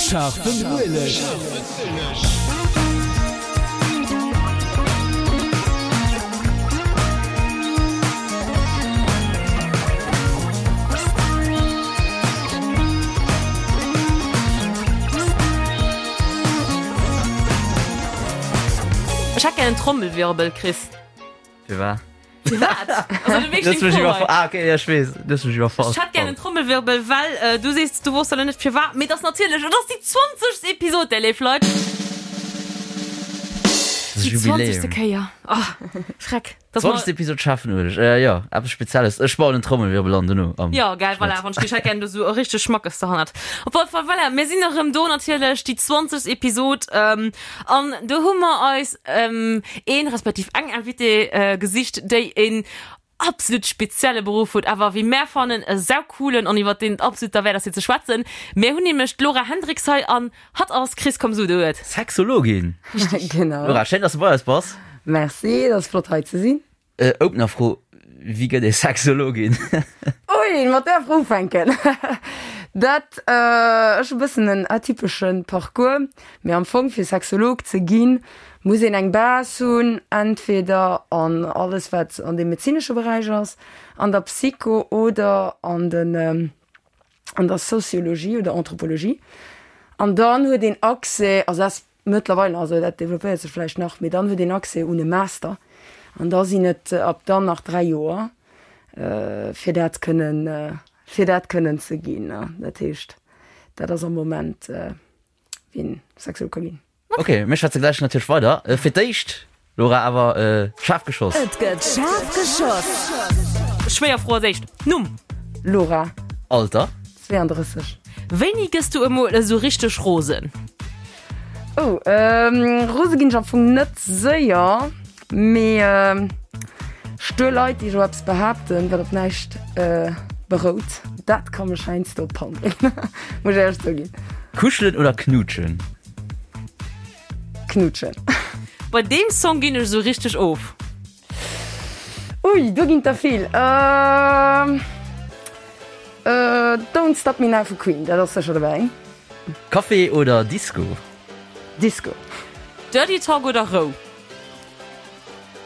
Scharfen Ueleg. Ech hätt gär en Trommelwirbel, Chris. Firwat? Firwat? Also, du weess Du hues deng mech Fro iwwerfall. hei. Ah, okay, ja, ech weess. Du hues mech iwwerfall. Ech hätt gär en Trommelwirbel, well äh, du sees, du wosst elo net firwat, mee et ass natierlech, et ass déi 20. Episod, där léif Leit. Das Déi 20. Jubiläum. Kéier. Oh, Schreck. Dass mer- 20. Episod Schaffen Ueleg. Äh, jo, eppes Spezielles. Ech bauen en Trommelwirbel an dono am Ja, geil, voilà, Schnitt. wann ech hätt gär do sou e richteg Schmackes derhannert. Op alle Fall, voilà, mir sinn erëm do natierlech, déi 20. Episod, ähm, an do hu mer eis ähm, een respektiv eng Invitée äh, gesicht, déi een absolut spezielle Beruff huet, awer wéi mär fannen e saucoolen an iwwer deen et absolut derwäert ass fir ze schwätzen. Mär hunn nämlech d'Laura Hendriks hei an hatt ass, Chris, komm so du et. Sexologin. Genau. Laura, schéin, dass du bei eis bass. Merci, et ass flott hei ze sinn. Opener Fro, Wéi gëtt ee Sexologin? Ui, mat där Fro ufänken, dat ech e bëssen en atypesche Parcours, mee am Fong fir Sexolog ze ginn, muss een eng Base hunn, entweder an alles wat an deem medezinesche Beräich ass, an der Psycho oder an den an der Sociologie oder Anthropologie. An dann huet een Accès, also dat ass Mëttlerweil, also dat developpéiert sech vläicht nach, mee dann huet een Accès un e Master an da sinn et ab dann nach 3 Joer, fir dat kënnen, fir dat kënnen ze ginn. Dat heescht, dat ass am Moment, wéi een Sexolog ka ginn. Ok, mir schwätze gläich natierlech weider. Fir d'éischt, Laura, awer schaarf geschoss. Et gëtt schaarf geschoss. Schwéier Fro als éischt, Numm? Laura. Alter? 32. Wéini gëss du emol esou richteg rosen? Oh, rose ginn ech am Fong net séier, mee stuer Leit, déi esou eppes behaapten, wat op näischt berout, dat ka mech heiansdo op d'Pan bréngen, muss ech éierlech zouginn. Kuschelen oder knuutschen? Knuutschen. Bei deem Song ginn ech esou richteg of. Ui, do ginn der vill. Don't Stop Me Now vu Queen, dat ass sécher dobäi. Café oder Disco? Disco. Dirty Talk oder Rou?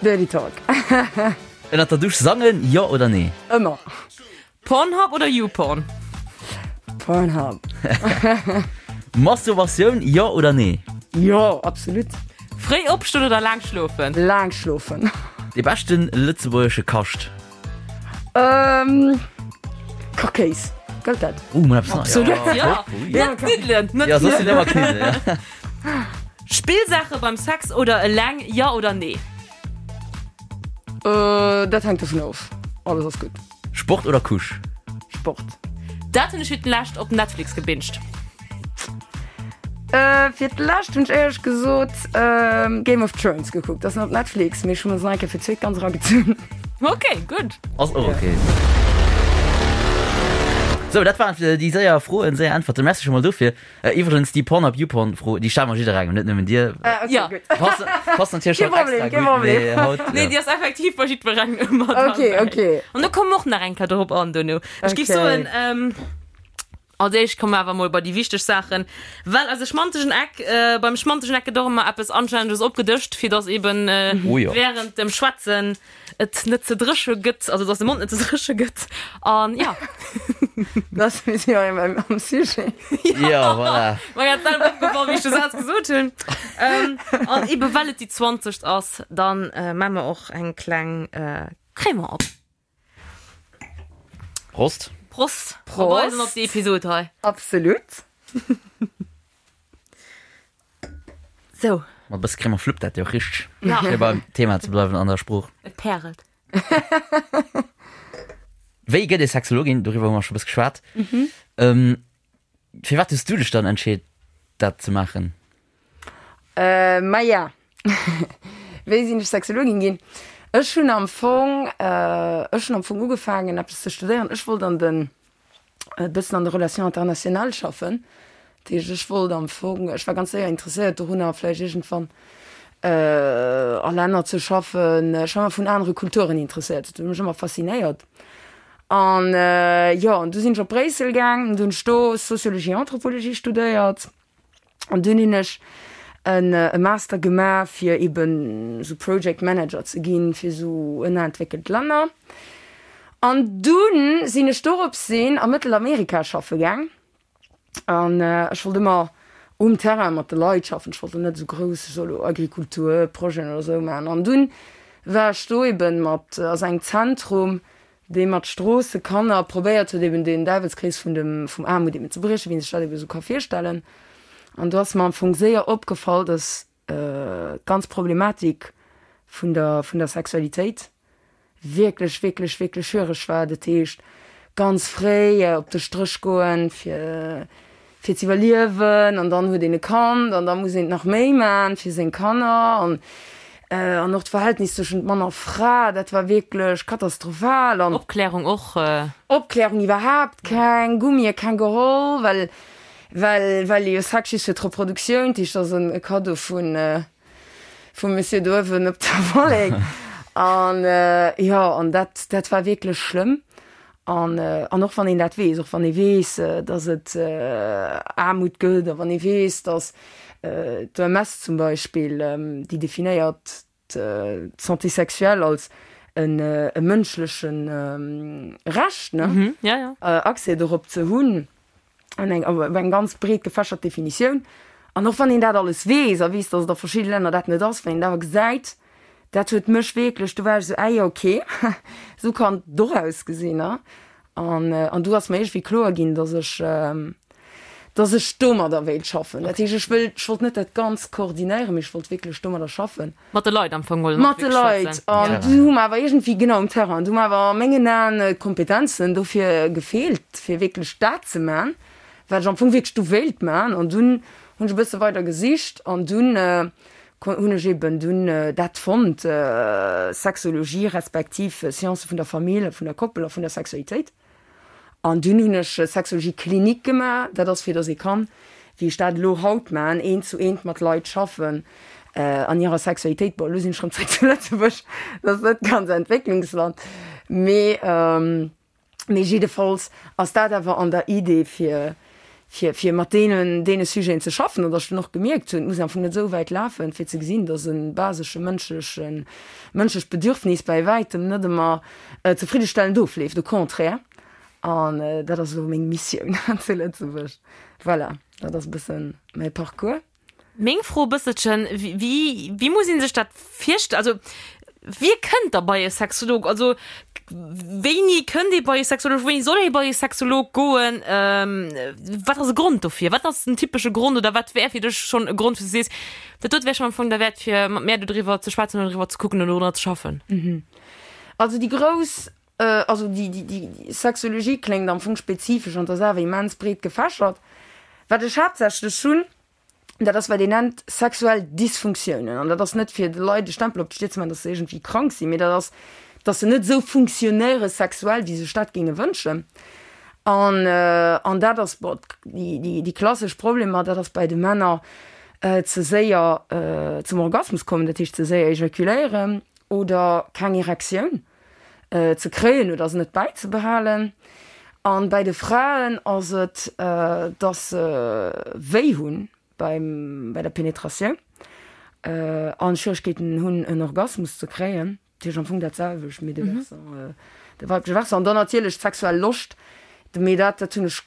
Dirty Talk. Ënnert der Dusch sangen, jo oder nee? Ëmmer. Pornhub oder YouPorn? Pornhub. Masturbatioun, jo oder nee? Jo, absolut. Fréi opstoen oder laang schlofen? Laang schlofen. Dee beschten lëtzebuergesche Kascht? Ähm, Kachkéis. Gëllt dat? Uh, mol eppes Neies. Absolut, ja. Ja, Net Kniddelen, net Ja, soss sinn ëmmer Kniddelen, ja. Spillsaache beim Sex oder eleng, jo oder nee? Äh, dat hänkt dovun of. Alles ass gutt. Sport oder Couche? Sport. Dat hunn ech fir d'lescht op Netflix gebinged. Äh, fir d'lescht hunn ech éierlech gesot Game of Thrones gekuckt. Dat ass net op Netflix, mee ech hu mer se nach eng Kéier fir d'zweet ganz eragezunn. Ok, gutt. Ass och ok. Sou, dat waren déi séier Froen, séier Äntwerten. Merci scho mol dofir. Iwwregens, déi Pornhub Youporn Fro, déi stelle mer jidderengem, net nëmmen dir. Ah, okay, Ja. gutt. Passt, passt natierlech Kee haut extra Problem, kee gutt, Problem. mee haut, Nee, ja. déi ass effektiv bei jiddwerengem ëmmer Okay, dabei. okay. An do komme mer och nach eng Kéier dorop an dono. Ech géif Okay. soen, ähm, als éischt komme mer awer mol bei déi wichteg Saachen, well eise schmantegen Eck, äh, beim schmantegen Eck gëtt och ëmmer eppes Anstänneges opgedëscht, fir dass eben äh, Oh jo. während dem Schwätzen et net ze dréche gëtt, also dass de Mond net ze dréche gëtt an ja. Das mir si jo am Sujet. Ja, voilà. Mer grad selwer opgefall, wéi ech de Saz gesot hunn. Ähm, an ebe well et déi 20. ass, dann äh, maa mer och eng kleng äh, Crémant op. Prost. Prost. Prost. Op eis an op déi Episod hei. Absolut. Sou. Mat e bësse Crème fluppt dat jo richteg. Ja. Fir beim Thema ze bleiwen an der Sprooch. Et pärelt. Wéi gëtt ee Sexologin? Doriwwer hu mer scho e bësse geschwat. Ähm, firwat hues du dech dann entscheet, dat ze maachen? Äh, maja. Wéi sinn ech Sexologin ginn? Ech hunn am Fong, äh, ech hunn am Fong ugefaangen eppes ze studéieren. Ech wollt an den e bëssen an de Relations internationales schaffen. Dat heescht, ech wollt am Fong, ech war ganz séier interesséiert dorunner, vläicht iergendwann a Länner ze schaffen. Ech war ëmmer vun anere Kulturen interesséiert, dat huet mech ëmmer faszinéiert. An jo, an du sinn ech op Bréissel gaang, an du hunn ech do Sociologie, Anthropologie studéiert. An dunn hunn ech en e Master gemaach, fir eben esou Project Manager ze ginn fir esou ënnerentwéckelt Länner. An dunn sinn ech dorops sinn a Mëttelamerika schaffe gaang. An ech wollt ëmmer um Terrain mat de Leit schaffen. Ech wollt elo net esou grouss, ech soll elo Agrikulturprojeten oder esou maachen. An dunn war ech do eben mat, ass engem Zentrum, dee mat Stroossekanner probéiert huet eben den Däiwelskrees vun dem, vum Aarmut eben ze briechen, wéi een sech dat eben esou ka virstellen. An do ass mer am Fong séier opgefall, dass d'ganz Problematik vun der, vun der Sexualitéit wierklech, wierklech, wierklech schwiereg war. Dat heescht, ganz fréi op de Stréch goen, fir, fir ze iwwerliewen an dann huet een e Kand an da muss een nach méi man fir seng Kanner an, an och d'Verhältnis tëschent Mann a Fra, dat war wierklech katastrophal an. Opklärung och. Opklärung iwwerhaapt keng, Gummie keng geholl, well, well, well ee jo Sex just fir d'Reproduktioun, dat heescht, dat ass e Kaddo vun, vum Monsieur do uewen op der Wollek. An jo, an dat, dat war wierklech schlëmm. An, an och wann een dat weess, och wann ee weess, datt et Aarmut gëtt a wann ee weess, datt d'OMS zum Beispill, déi definéiert d'Santé sexuelle als e mënschleche Recht, ne, Accès dorop ze hunn, an eng, awer eng ganz breet gefächert Definitioun. An och wann een dat alles weess a weess, datt et a verschidde Länner dat net ass, wann een dat awer gesäit, dat huet mech wierklech, do war ech esou, ah jo, okay, esou kann et och ausgesinn, ne? An, an du ass mer iergendwéi kloer ginn, datt ech, datt ech domadder wéilt schaffen. Dat heescht, ech wëll, ech wollt net dat Ganzt koordinéieren, mee ech wollt wierklech domadder schaffen. Mat de Leit am Fong wollen Mat de Leit. An du hu mer awer iergendwéi, genau, um Terrain, du hu mer awer a mengen Aen d'Kompetenzen dofir gefeelt, fir wierklech dat ze man, wat ech am Fong wierklech du wéilt man. An dunn hunn ech e bësse weider gesicht an dunn hunn ech eben dunn dat fonnt, Sexologie respektiv Science vun der Famill a vun der Koppel a vun der Sexualitéit. An dunn hunn ech Sexologie clinique gemaach. Dat ass fir datt ee kann, wéi ech dat elo haut maachen, eent zu eent mat Leit schaffen an hirer Sexualitéit. Bon, elo sinn ech rëm zréck zu Lëtzebuerg, dat ass net ganz Entwécklungsland, mee mee jiddefalls ass dat awer an der Idee fir fir fir mat deenen deene Sujeten ze schaffen. An datt ech dunn och gemierkt hunn, et muss am Fong net esou wäit lafen, fir ze gesinn, datt e basesche mënschleche mënschlecht Bedürfnis bäi wäitem net ëmmer zefriddestellend ofleeft, au contraire. An dat ass elo meng Missioun zu Lëtzebuerg. Voilà, dat ass e bësse mäi Parcours. Meng Fro e bësselchen, wéi wéi muss ee sech dat virstellen? Also wie kënnt da bei e Sexolog? Also wéini kënnt ee bei e Sexolog, wéini soll ee bei e Sexolog goen? Wat ass e Grond dofir? Wat ass den typesche Grond oder wat wär fir dech schonn e Grond, wou s du sees, dat dote wär schonn am Fong derwäert fir mat mär dodriwwer ze schwätzen oder doriwwer ze kucken oder dorunner ze schaffen? Also déi grouss, also déi, déi, déi Sexologie kléngt am Fong spezifesch an 't ass awer immens breet gefächert. Wat ech haaptsächlech hunn, dat ass wat een nennt sexuell Dysfunktiounen. An dat ass net fir de Leit e Stempel op d'Stier ze maachen, datt se iergendwéi krank sinn, mee dat ass, datt se net esou funktionéiere sexuell, wéi se sech dat géinge wënschen. An, an dat ass, bon, déi, déi, déi klassesch Problemer, dat ass bei de Männer ze séier zum Orgasmus kommen, dat heescht ze séier ejakuléieren oder keng Erektioun ze kréien oder se net bäizebehalen. An bäi de Fraen ass et, dass se wéi hunn beim, bei der Penetratioun an Schwieregkeeten hunn en Orgasmus ze kréien. Dat heescht am Fong dat selwecht, mee de Versant, de weibleche Versant. An dann natierlech d'sexuell Loscht, mee dat, dat hunn ech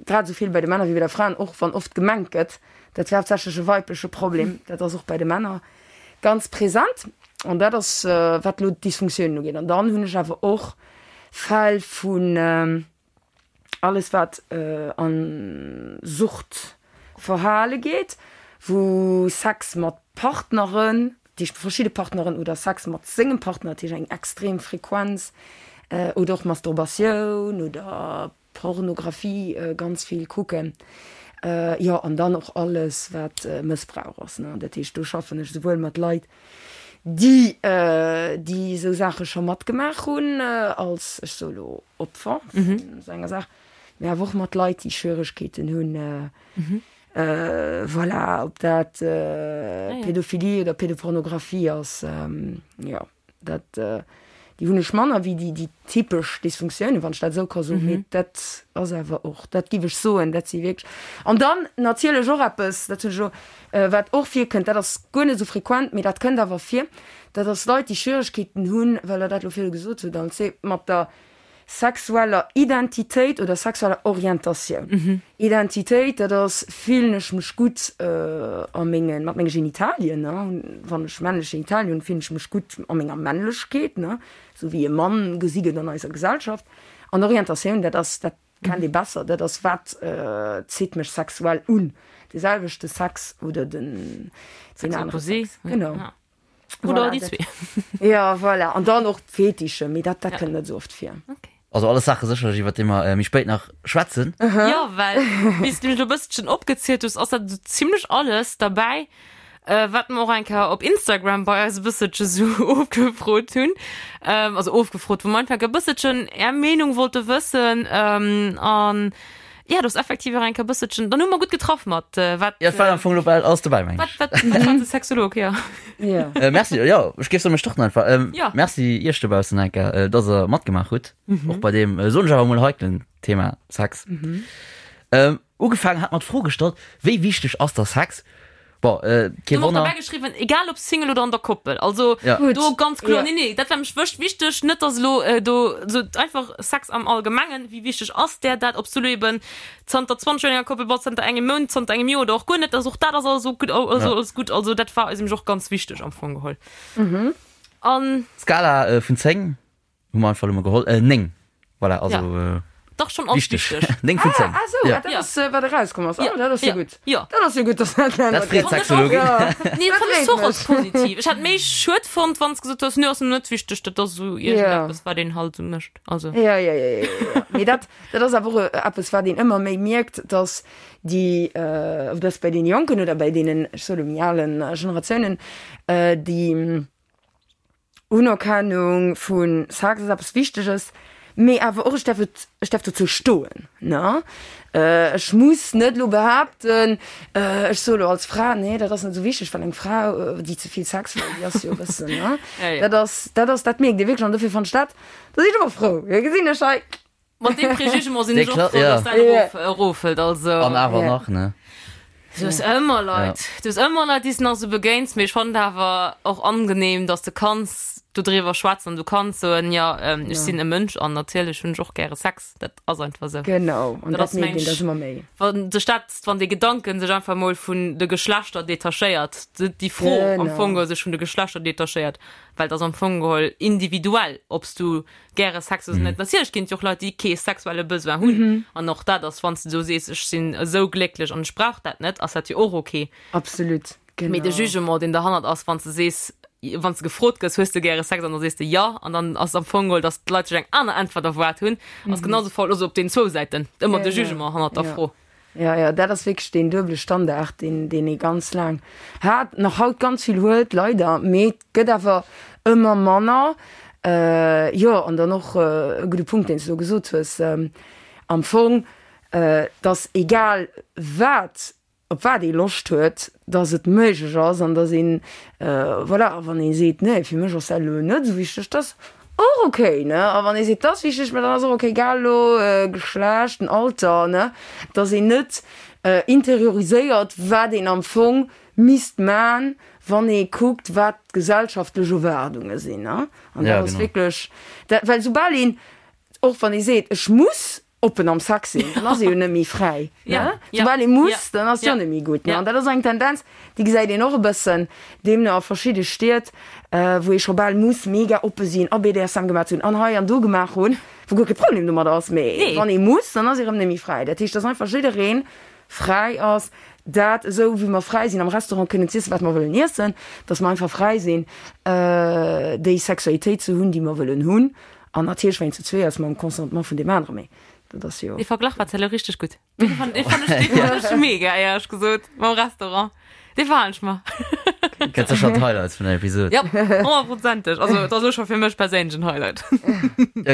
grad esou vill bei de Männer wéi bei der Fraen, och wann oft gemengt gëtt, dat wär haaptsächlech e weibleche Problem, dat ass och bei de Männer ganz present. An dat ass, wat elo d'Dysfunktiounen ugeet. An dann hunn ech awer och Fäll vun alles, wat a Suchtverhale geet, wou Sex mat Partneren, dat heescht verschidde Partneren, oder Sex mat sengem Partner, dat heescht eng extrem Frequenz, oder och Masturbatioun oder Pornografie ganz vill kucken. Jo, an dann och alles, wat Mëssbrauch ass, ne. Dat heescht, do schaffen ech souwuel mat Leit, déi déi esou Saache scho matgemaach hunn, als, ech soe lo, Opfer vun esou enger Saach, mee awer och mat Leit, déi Schwieregkeeten hunn, Voilà, ob dat Pädophilie oder Pädopornografie ass, jo, dat. Déi hunn ech manner wéi déi, déi typesch Dysfunktiounen, wann ech dat esou ka soen. Mee dat ass awer och, dat giff ech soen, dat si wierklech. An dann natierlech och eppes, dat hunn ech elo, wat och virkënnt, dat ass guer net esou frequent, mee dat kënnt awer vir, dat ass Leit, déi Schwieregkeeten hunn, well Der dat elo virdu gesot hutt, Alce, mat der sexueller Identitéit oder sexueller Orientatioun. Identitéit, dat ass, fillen ech mech gutt a mengen, mat menge Genitalien, ne, wann ech männlech Genitalien hunn, fillen ech mech gutt a menger Männlechkeet, ne, esou wéi e Mann gesi gëtt an eiser Gesellschaft. An Orientatioun, dat ass, dat kennt ee besser, dat ass, wat zitt mech sexuell un, de selwechte Sex oder den, den anere Sex. Genau. Oder déi zwee. Ja, voilà. An dann och Fetische, mee dat, dat kënnt net esou oft vir. Okay. Also alles Saache sécherlech, iwwer déi mer méi spéit nach schwätzen. Ja, well wéi s du elo e bësselchen opgezielt hues, ass dat esou zimlech alles derbäi, wat mer och eng Kéier op Instagram bei eis e bësselche sou ofgefrot hunn. Also ofgefrot, wou mer einfach e bësselchen är Meenung wollte wëssen. An Ja, do ass effektiv och eng Kéier bësselchen, dann hu mer gutt getraff mat wat. Ja, et war am Fong elo bal alles dobäi, meng ech. Wat, wat, wat war de Sexolog, ja. Ja. Merci, jo, ech géif soen, mir starten einfach. Ja. Merci iech dobaussen eng Kéier, dass der matgemaach hutt, och bei deem, soen ech awer emol, heiklen Thema Sex. Ugefaangen hat mat d'Fro gestallt, Wéi wichteg ass der Sex? Bon, äh, kee Du Wonner. dobäi geschriwwen, egal ob Single oder an der Koppel. Also Ja. Gut. do ganz kloer, Ja. nee, nee, dat war mech wëscht wichteg, net dass elo äh, do so einfach Sex am Allgemengen, wéi wichteg ass där dat, ob s du elo eben zanter 20 Joer an enger Koppel bass, zanter engem Mount, zanter engem Joer oder och guer net, also och dat ass alles ok, also Ja. alles gutt. Also dat war eis nämlech och ganz wichteg am Fong geholl. An Skala äh, vun 10 Hu mer einfach elo mol geholl. Äh, 9. Voilà, also Ja. äh, Dach schon als wichteg. wichteg. 9 vun 10. Ah, ah sou, Ja. dat Ja. ass, wat erauskomm ass. Ja, Oh, dat ass jo ja, gutt. ja. Dat ass jo gutt, dass dat Dat ännert freet gëtt. d'Sexologin. Ja. Nee, Dat fand ech freet och als mech. positiv. Ech hätt méi schued fonnt, wann s gesot hues, nö, ass net wichteg, dat ass esou Ja. iergendeppes, wat een halt esou mécht. Also. Ja, ja, ja, ja, ja. Mee dat, dat ass awer och eppes, wat een ëmmer méi mierkt, dass déi, äh, ob dass bei deene Jonken oder bei deenen, ech soe lo méi alen Generatiounen, äh, déi, Unerkennung vu Sex ass eppes Wichteges, mee awer och ech däerf et, ech däerf dozou stoen, ne? Ech muss net elo behaapten, ech soe lo als Fra, nee dat ass net esou wichteg, well eng Fra, déi ze vill Sex wëll, déi ass jo e bëssen, ne? Dat ass, dat ass, dat mierkt ee wierklech an dofir fannen ech dat, da sinn ech ëmmer frou, da gesinn ech hei. Mat deem Prejugement sinn ech och frou, ja. dass dat erof, eroffält. Also. An awer Ja. nach, ne? Du hues ëmmer Leit, du hues ëmmer Leit, déi s de nach sou begéins, mee ech fannen et awer och angenehm, dass de kanns dodriwwer schwätzen an du kanns soen, jo, ech sinn e Mënsch an natierlech hunn ech och gäre Sex. Dat ass einfach sou. Genau, an Dat dat ass mierkt meng een da ëmmer méi. Wann sech dat, wann dee Gedanken sech einfach mol vun de Geschlechter detachéiert, déi Fro am Genau. Fong geholl sech vun de Geschlechter detachéiert, well et ass am Fong geholl individuell, ob s du gäre Sex hues oder net. Natierlech ginn et jo och Leit, déi kee sexuelle Besoin hunn. An och dat ass, wann s de do sees, ech sinn esou glécklech an ech brauch dat net, ass dat jo och ok. Absolut, genau. Mee de Jugement, deen derhannert ass, wann s de sees, wann s de gefrot gëss, hues de gäre Sex an da sees de jo, an dann ass am Fong geholl, datt d'Leit sech eng aner Äntwert erwaart hunn, ass genau esou faul. Also op deenen zwou Säiten ëmmer de Jugement hannert der Fro. Jo, jo, dat ass wierklech deen duebele Standard, deen, deen ee ganz laang hat, nach haut ganz vill huet, leider, mee et gëtt awer ëmmer manner. Jo, an dann och e gudde Punkt, deen s de do gesot hues, am Fong, dass egal wat, op wat ee Loscht huet, dass et méiglech ass an dass een, voilà, a wann ee seet, nee, fir mech ass dat elo net esou wichteg, dass och ok, ne, a wann ee seet, dat ass wichteg, mä dann ass och ok, egal elo Geschlecht, den Alter, ne, dass een net interioriséiert, wat een am Fong misst man, wann ee kuckt, wat d'gesellschaftlech Erwaardunge sinn, ne, an dat ass wierklech dat, well soubal een, och wann ee seet, ech muss oppen am Sex sinn, dann ass ee jo net méi fräi. Ja, ne? Soubal ee muss, dann ass et jo net méi gutt. Ne? An dat ass eng Tendenz, déi gesäit een och e bëssen deemno a verschidde Stied, wou ee scho bal muss mega oppe sinn a BDSM gemaach hunn an hei an do gemaach hunn, wou guer kee Problem domat ass. Mee wann ee muss, dann ass ee rëm net méi fräi. Dat heescht, dass einfach jidderee fräi ass, dat esou wéi mer fräi sinn am Restaurant kënnen z'iessen, wat mer wëllen iessen, dass mer einfach fräi sinn, déi Sexualitéit ze hunn, déi mer wëllen hunn. An natierlech, wann een zu zwee ass, mam Consentement vun deem aneren, mee dat ass jo. Dee Verglach war elo richteg gutt. Dee fand dee fand ech, dee fand ech mega, éierlech gesot, mam Restaurant. Dee fand ech mer. Gëtt sécher d'Highlights vun der Episod. Ja, honnertprozenteg. Also, et ass elo scho fir mech perséinlech en Highlight.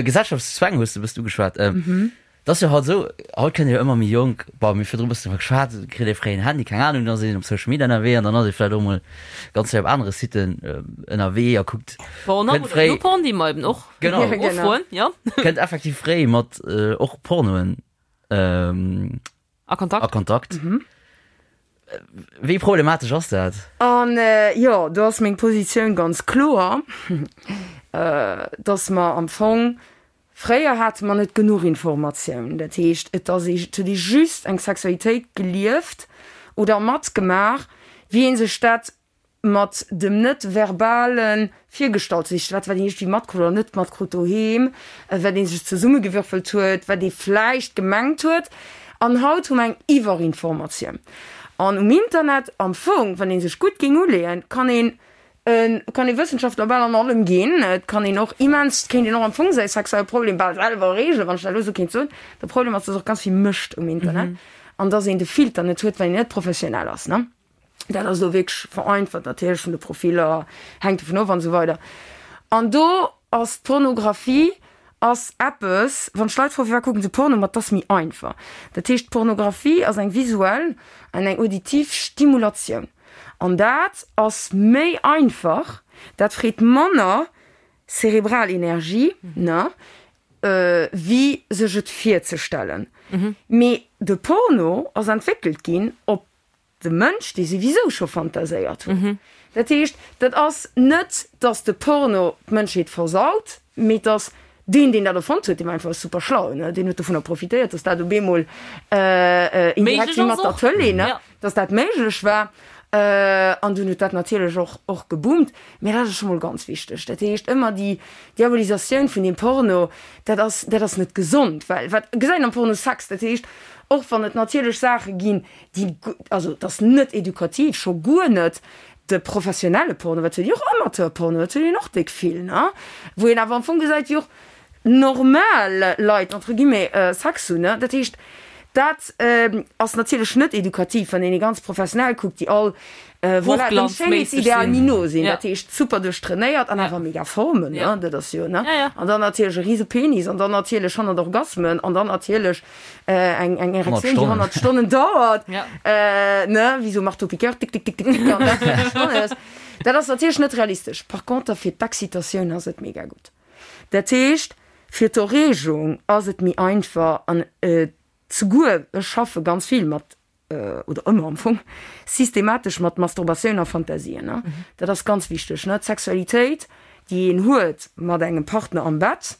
Gesellschaftszwäng hues de e bëssen ugeschwat. Et ass jo haut esou, haut kënnt ee jo ëmmer méi jonk, bon, mir hu virdru e bëssen driwwer geschwat, kritt ee fréi en Handy, keng Anung, dann ass een op Social Media ënnerwee an dann ass ee vläicht och mol ganz fréi op anere Siten ënnerwee a kuckt, Pornhub kënnt oder fréi, YouPorn, déi mer eben och Genau. Ja, genau. ofroen, jo. kënnt effektiv fréi mat och Pornoen A Kontakt. a Kontakt. Wéi problematesch ass dat? An jo, do ass meng Positioun ganz kloer, dass mer am Fong Fréier hate mer net genuch Informatioun, dat heescht, et ass ee, et huet ee just eng Sexualitéit gelieft oder matgemaach, wéi ee sech dat mat dem net-verbale virgestallt huet, dat wat een iergendwéi matkrut oder net matkrut doheem, wat ee sech zesummegewürfelt huet, wat ee vläicht gemengt huet. An haut hu mer eng Iwwerinformatioun. An um Internet am Fong, wann ee sech gutt géing uleeën, kann een Et kann ee Wëssenschaftler bal an allem ginn. Et kann een och immens, et kéint een och am Fong säi sexuelle Problem bal selwer reegelen, wann ech dat elo esou kéint soen. De Problem ass, dass och ganz vill Mëscht um Internet an dass een de Filter net huet, well een net professionell ass, ne. Dat ass elo wierklech vereinfacht natierlech vun de Profiller, hänkt dovun of an esou weider. An do ass d'Pornografie ass eppes, wann ech Leit froen, firwat kucken se Porno, ma 't ass méi einfach. Dat heescht, d'Pornografie ass eng visuell an eng auditiv Stimulatioun. An dat ass méi einfach, dat freet manner cerebral Energie, ne, wéi sech et virzestellen. Mee de Porno ass entwéckelt ginn op de Mënsch, dee souwisou scho fantaséiert huet. Dat heescht, dat ass net, datt de Porno d'Mënschheet versaut, mee et ass deen, deen dat erfonnt huet, dee war einfach super schlau, ne, deen huet dovunner profitéiert, datt dat op eemol indirekt wéi mat der Tëlee, ne. Dass dat méiglech war, an dunn huet dat natierlech och och geboomt. Mä dat ass scho mol ganz wichteg. Dat heescht, ëmmer déi Diabolisatioun vun deem Porno, dat ass, dat ass net gesond, well wat gesäit een am Porno? Sex. Dat heescht, och wann et natierlech Saache ginn, déi, also et ass net edukativ, scho guer net de professionelle Porno, wat huet een och Amateurporno, dat huet een och déck vill, ne, wou een awer am Fong gesäit, wéi och normal Leit entre guillemets Sex hunn, ne. Dat heescht, dat ass natierlech net edukativ, wann een ee ganz professionell kuckt, déi all voilà dem Schéinheetsideal méi no sinn, dat heescht super duerchtrainéiert an awer mega Formen, ne, dat ass jo, ne. An dann natierlech e rise Penis an dann natierlech 100 Orgasmen an dann natierlech eng eng Erektioun, déi 100 Stonnen dauert, ne, wéi sou Marteau-piqueur, tick, tick, tick, tick, tick, an dat 100 Stonnen. Dat ass natierlech net realistesch. Par conter fir d'Excitatioun ass et mega gutt. Dat heescht, fir d'Erreegung ass et méi einfach an souguer, ech schaffe ganz vill mat, oder ëmmer am Fong, systematesch mat Masturbatioun a Fantasien. Dat ass ganz wichteg, ne. D'Sexualitéit, déi een huet mat engem Partner am Bett,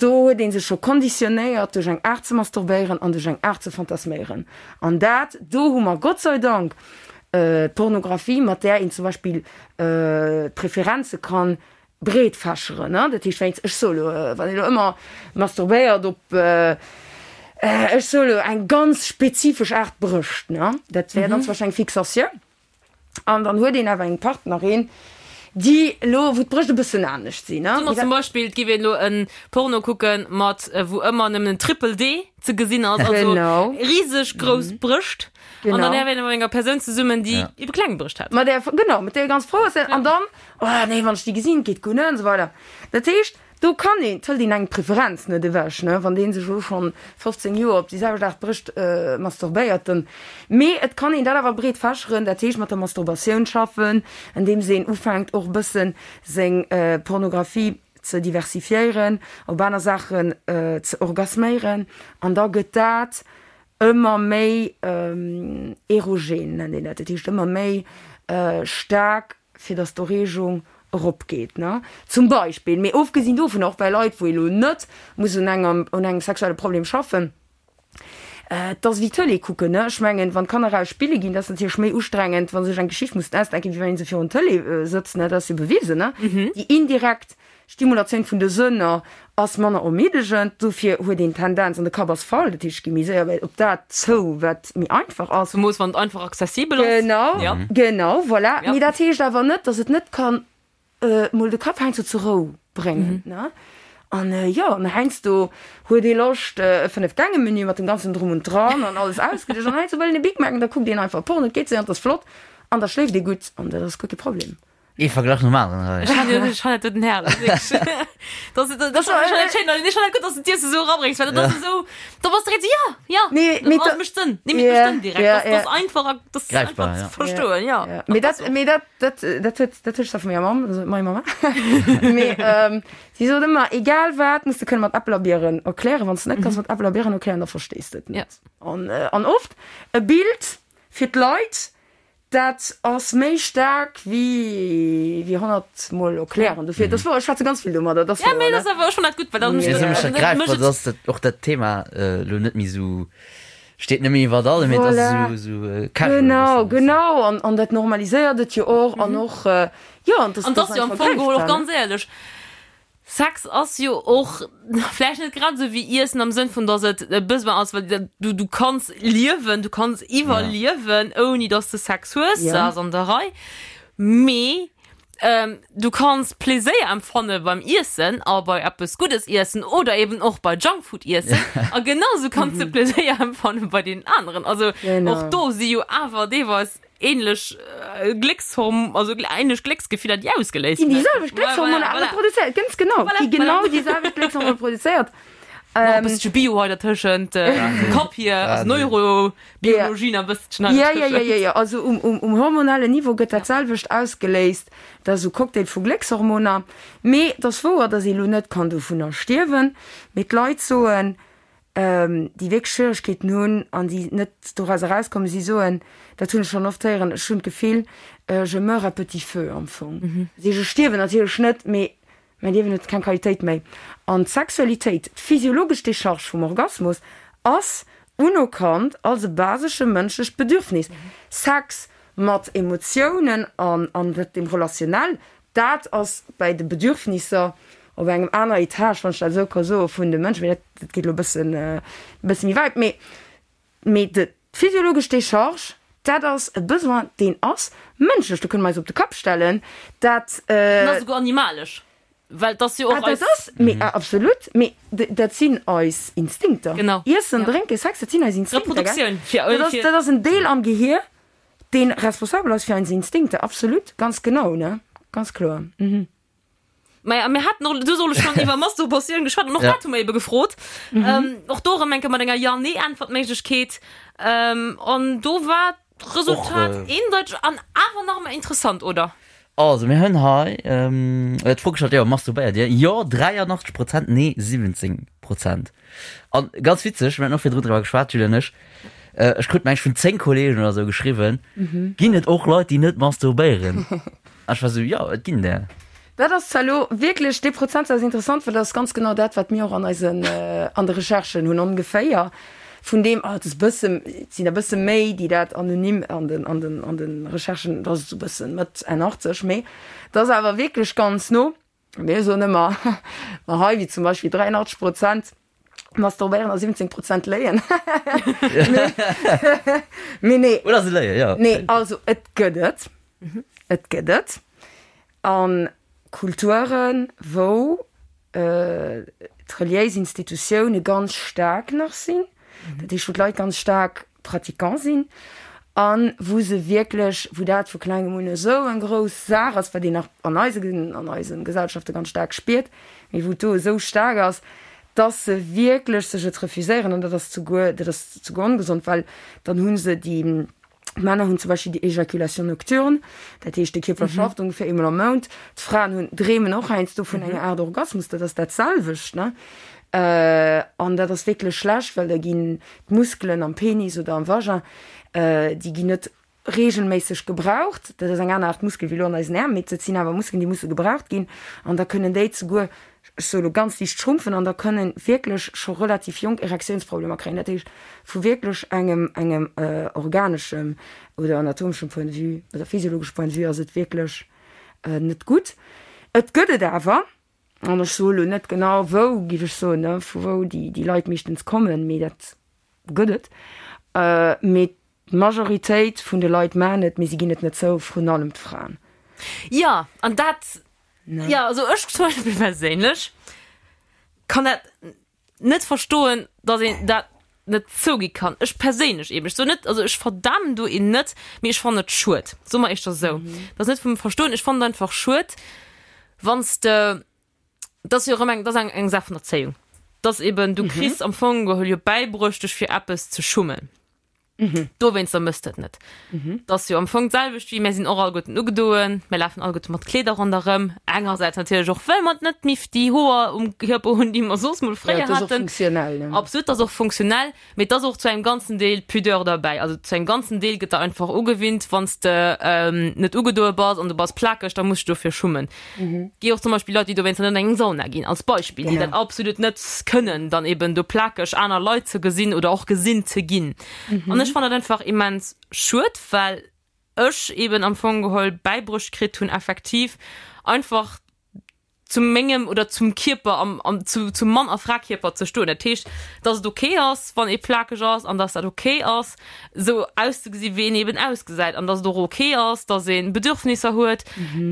do huet ee sech scho konditionéiert duerch eng Aart ze masturbéieren an duerch eng Aart ze fantasméieren. An dat, do hu mer Gott sei Dank d'Pornografie, mat där een zum Beispill d'Preferenze kann breet fächeren, ne, dat heescht wéinst, ech soe lo, wann een elo ëmmer masturbéiert op, ech soe lo eng ganz spezifesch Aart Brëscht, ne, dat wär dann zum Beispill eng Fixatioun an dann huet een awer eng Partnerin, déi elo, wou d'Brëscht e bëssen anescht sinn, ne. Soe mer zum Beispill, et géif een elo e Porno kucke mat, wou ëmmer nëmmen en Triple D ze gesinn ass, also riseg grouss Brëscht an dann wär een mat enger Persoun zesummen, déi ebe kleng Brëscht hätt. Mat där, genau, mat där ee ganz frou ass an dann Oh nee, wann ech déi gesinn, geet guer net an esou weider. Dat heescht, do kann een, et hëlt een eng d'Preferenz net ewech, ne, wann dee sech elo schonn 15 Joer op déi selwecht Aart Brëscht masturbéiert, dann, mee et kann een dat awer breet fächeren, dat heescht mat der Masturbatioun schaffen, andeems een ufänkt och e bëssen seng Pornografie ze diversifiéieren, op aner Saachen ze orgasméieren an da gëtt dat ëmmer méi erogen, nennt een dat, dat heescht ëmmer méi staark fir dass d'Erreegung eropgeet, ne, zum Beispill. Mee ofgesinn dovun, och bei Leit, wou ee lo net muss un engem, un engem sexuelle Problem schaffen, et ass wéi Tëlee kucken, ne. Ech mengen, wann d'Kanner eraus spille ginn, dat ass natierlech méi ustrengend, wa se sech eng Geschicht mussen ausdenken, wéi wann ee se virun d'Tëlee sëtzt, ne. Dat ass jo bewisen, ne. Déi indirekt Stimulatioun vun de Sënner ass manner ermiddegend, dofir huet een d'Tendenz, an de Kapp ass voll, dat heescht, ech gi méi séier op dat zou, wat méi einfach ass. Zemoos wann et einfach accessibel ass. Genau, genau, voilà. Mee dat heescht awer net, datt et net kann mol de Kapp heiansdo zur Rou bréngen, ne? An jo, an heiansdo huet ee Loscht e Fënnef-Gänge-Menü mat dem ganzen Drum und Dran an alles ausgedëscht an heiansdo wëll een e Big Mac an da kuckt een einfach Porno, et geet séier an et ass flott an da schléift ee gutt an dat ass guer kee Problem. Ee Verglach nom aneren hei. Ech han ech han dat den Herr. Das das schéin ech han gutt, dass du d'Iesse sou erabréngs, well dat ass esou, da bass direkt sou, ja, ja, Nee, mee dat da- mécht Sënn. Nee, mee et mécht Ja, Sënn direkt. ja, Das das ja. einfach a das Greifbar, einfach ja. ze verstoen, ja. Ja, mee dat, mee dat, dat, dat huet, dat huet ech da vu menger Mamm, also mei Mama. Mee ähm, si sot ëmmer, egal wat, muss de kënne mat Äppel a Bieren erklären. Wann s de net kanns mat Äppel a Bieren erklären, da verstees de et net. An, äh, an oft e Bild fir d'Leit, Dat ass méi staark wéi wéi 100 mol erklären. Dofir, dat ass wouer, ech schwätze ganz vill domadder, dat ass Ja, wouer, mee ne? dat ass awer, ech fannen dat gutt, well dat Mee mécht esou mécht dat dat gräifbar, mécht et. dass dat och dat Thema elo net méi esou steet net méi iwwert allem, mee et ass Voilà. esou esou casual e Genau, bëssen, weess de. genau. An, an dat normaliséiert et jo och an och, jo, an An dat 't ass jo am ass Fong einfach geholl och greifbar, ne? ganz éierlech, Sex ass jo och vläicht net grad esou wéi Iessen am Sënn vun, dass et e Besoin ass, well du, du kanns liewen, du kanns iwwerliewen, ouni dass de Sex hues, dat ass an der Rei. Mee du kanns Pleséier empfanne beim Iessen a bei eppes Guddes iessen oder eben och bei Junkfood iessen. A genau esou kanns de Pleséier empfanne bei deenen aneren. Also och do si jo awer deelweis ähnlech Gléckshorm, also ähnlech Glécksgefiller, déi ausgeléist Ginn déi selwecht Gléckshormoner awer produzéiert, ganz genau, Voilà, gi genau voilà. déi selwecht Gléckshormoner produzéiert. Nach e bëssche Bio hei dertëschent, Kapp hier, also Neurobiologie nach e bësschen hei Ja, ja, ja, dertëschent. ja, ja, also um, um, um hormonellen Niveau gëtt dat selwecht ausgeléist, dat ass esou Cocktail vu Gléckshormoner. Mee et ass wouer, datt ee lo net kann dovunner stierwen, mee d'Leit soen, déi wierklech Schwieregkeeten hunn an déi net doraus erauskommen, si soen, dat hunn ech schonn oft héieren, ech hunn d'Gefill, je meurs à petit feu am Fong. Dat heescht, ech stierwen natierlech net, mee mäin Liewen huet keng Qualitéit méi. An d'Sexualitéit, d'physiologesch Decharge vum Orgasmus ass unerkannt als e basesche mënschlecht Bedürfnis. Sex mat Emotiounen an an dem Relationnel, Dat ass bäi de Bedürfnisser op engem aner Etage, wann ech dat esou ka soen, vun de Mënschen. Mee dat, dat geet elo e bëssen, e bësse méi wäit. Mee, mee de, d'physiologesch Décharge, dat ass e Besoin, deen ass mënschlech. Do kënne mer eis op de Kapp stellen. Dat. En ass esouguer animalesch, well et ass jo Ah, och dat eis. ass, mee absolut, mee dat sinn eis Instinkter. Genau. Iessen, Ja. drénken, Sex, dat sinn eis Instinkter, gell? Reproduktioun, fir, Dat ass, fir. dat ass en Deel am Gehier, Deen responsabel ass fir eis Instinkter, absolut, ganz genau, ne, ganz kloer, mhm. Maja, mir haten och du soll schon iwwer Masturbatioun geschwat an och Ja. dat hu mer ebe gefrot. Ähm, och do erëm eng Kéier mat enger Ja-Nee-Äntwertméiglechkeet. Ähm, an do war d'Resultat Och, äh, eendeiteg an awer nach ëmmer interessant, oder? Also mir hunn hei d'Fro gestallt, jo, masturbéiert Dir? Jo, 83 Prozent, nee, 17 Prozent. An ganz witzeg, mir haten och virdrun driwwer geschwat, d'Julie an ech, ech krut mengen ech vun 10 Kollegen oder sou geschriwwen, ginn et och Leit, déi net masturbéieren? An ech war sou, jo, et ginn der. Dat ass zwar elo wierklech, dee Prozentsaz ass interessant, well dat ass ganz genau dat, wat mir och an eisen, an de Recherchen hunn, ongeféier. Vun deem, ah, et ass e bësse, et sinn der e bësse méi, déi dat anonym an den, an den, an de Recherchen, dat ass esou e bëssen Mëtt, Enn 80, mee dat ass awer wierklech ganz no. Mir soen ëmmer, ma hei, wéi zum Beispill 83 Prozent masturbéieren a 17 Prozent léien. Mee nee. Oder se léien, jo. Nee, also et gëtt et. Et gëtt et. A Kulturen, wou d'reliéis Institutioune ganz staark nach sinn, dat heescht wou d'Leit ganz staark Pratiquant sinn a wou se wierklech, wou dat vu klengem un esou eng grouss Saach ass, wat een nach an eise an eise Gesellschafte ganz staark spiert, mee wou et do esou staark ass, dass se wierklech sech et refuséieren an dat ass souguer, dat ass souguer ongesond, well dann hu se déi D'Männer hunn zum Beispill déi Éjaculation nocturne, dat heescht de Kierper schafft ongeféier eemol am Mount. D'Fraen hunn, dreemen och heiansdo vun enger Aart Orgasmus, dat ass dat selwecht, ne? An dat ass wierklech schlecht, well da ginn d'Muskelen am Penis oder am Vagin, déi ginn net reegelméisseg gebraucht. Dat ass eng aner Aart Muskel wéi elo an eisen Äerm, mee dat sinn awer Muskelen, déi musse gebraucht ginn. An da kënnen déi zeguer ech soe lo ganz liicht schrumpfen an da kënnen wierklech scho relativ jonk Erektiounsproblemer kréien. Dat heescht vu wierklech engem engem organeschem oder anatomeschem Point de vue oder physiologeschem Point de vue ass et wierklech net gutt. Et gëtt et awer, an ech soe lo net genau wou, géif ech soen, ne, vu wou déi déi Leit meeschtens kommen, mee dat gëtt et. Mee d'Majoritéit vun de Leit maachen et, mee si ginn et net zou, vrun allem d'Fraen. Jo, an dat Ja, also ech zum Beispill perséinlech kann dat net verstoen, dass een dat. net zougi kann. Ech perséinlech eben, ech soen net, also ech verdamen do een net, mee ech fannen et schued, soe mer éischter esou. Dat ass net vum Verstoen, ech fannen et einfach schued, wann s de, dat ass jo erëm eng, dat ass eng, eng Saach vun Erzéiung, dass eben du kriss am Fong geholl jo bäibruecht, dech fir eppes ze schummen. Dowéinster mëss de et net. Dat ass jo am Fong d'selwecht wéi, mär sinn och alleguerten ugedoen, mär lafen alleguerte mat Kleeder ronderëm, engersäits natierlech och well mer net méi déi Hoer um Kierper hunn, déi mer soss mol Ja, fréier et ass och haten. funktionell, ne? Absolut, dat ass och funktionell, mee et ass och zu engem ganzen Deel Pudeur derbäi. Also zu engem ganzen Deel gëtt der einfach ugewinnt, wann s de net ugedoe bass an du bass plakeg, da muss du dofir schummen. Gi och zum Beispill Leit, déi dowéinster net an eng Sauna ginn, als Beispill, déi dat absolut net kënnen, dann eben do plakeg aner Leit ze gesinn oder och gesinn ze ginn. An ech fannen dat einfach immens schued, well ech eben am Fong geholl bäibruecht kritt hunn, effektiv einfach zu mengem oder zum Kierper am, am, zu, zum Mann a Frakierper ze stoen. Dat heescht, dass et okay ass, wann ee plakeg ass an dass dat okay ass, esou auszegesi wéi een eben ausgesäit an dass et och ok ass, dass ee Bedürfnisser huet,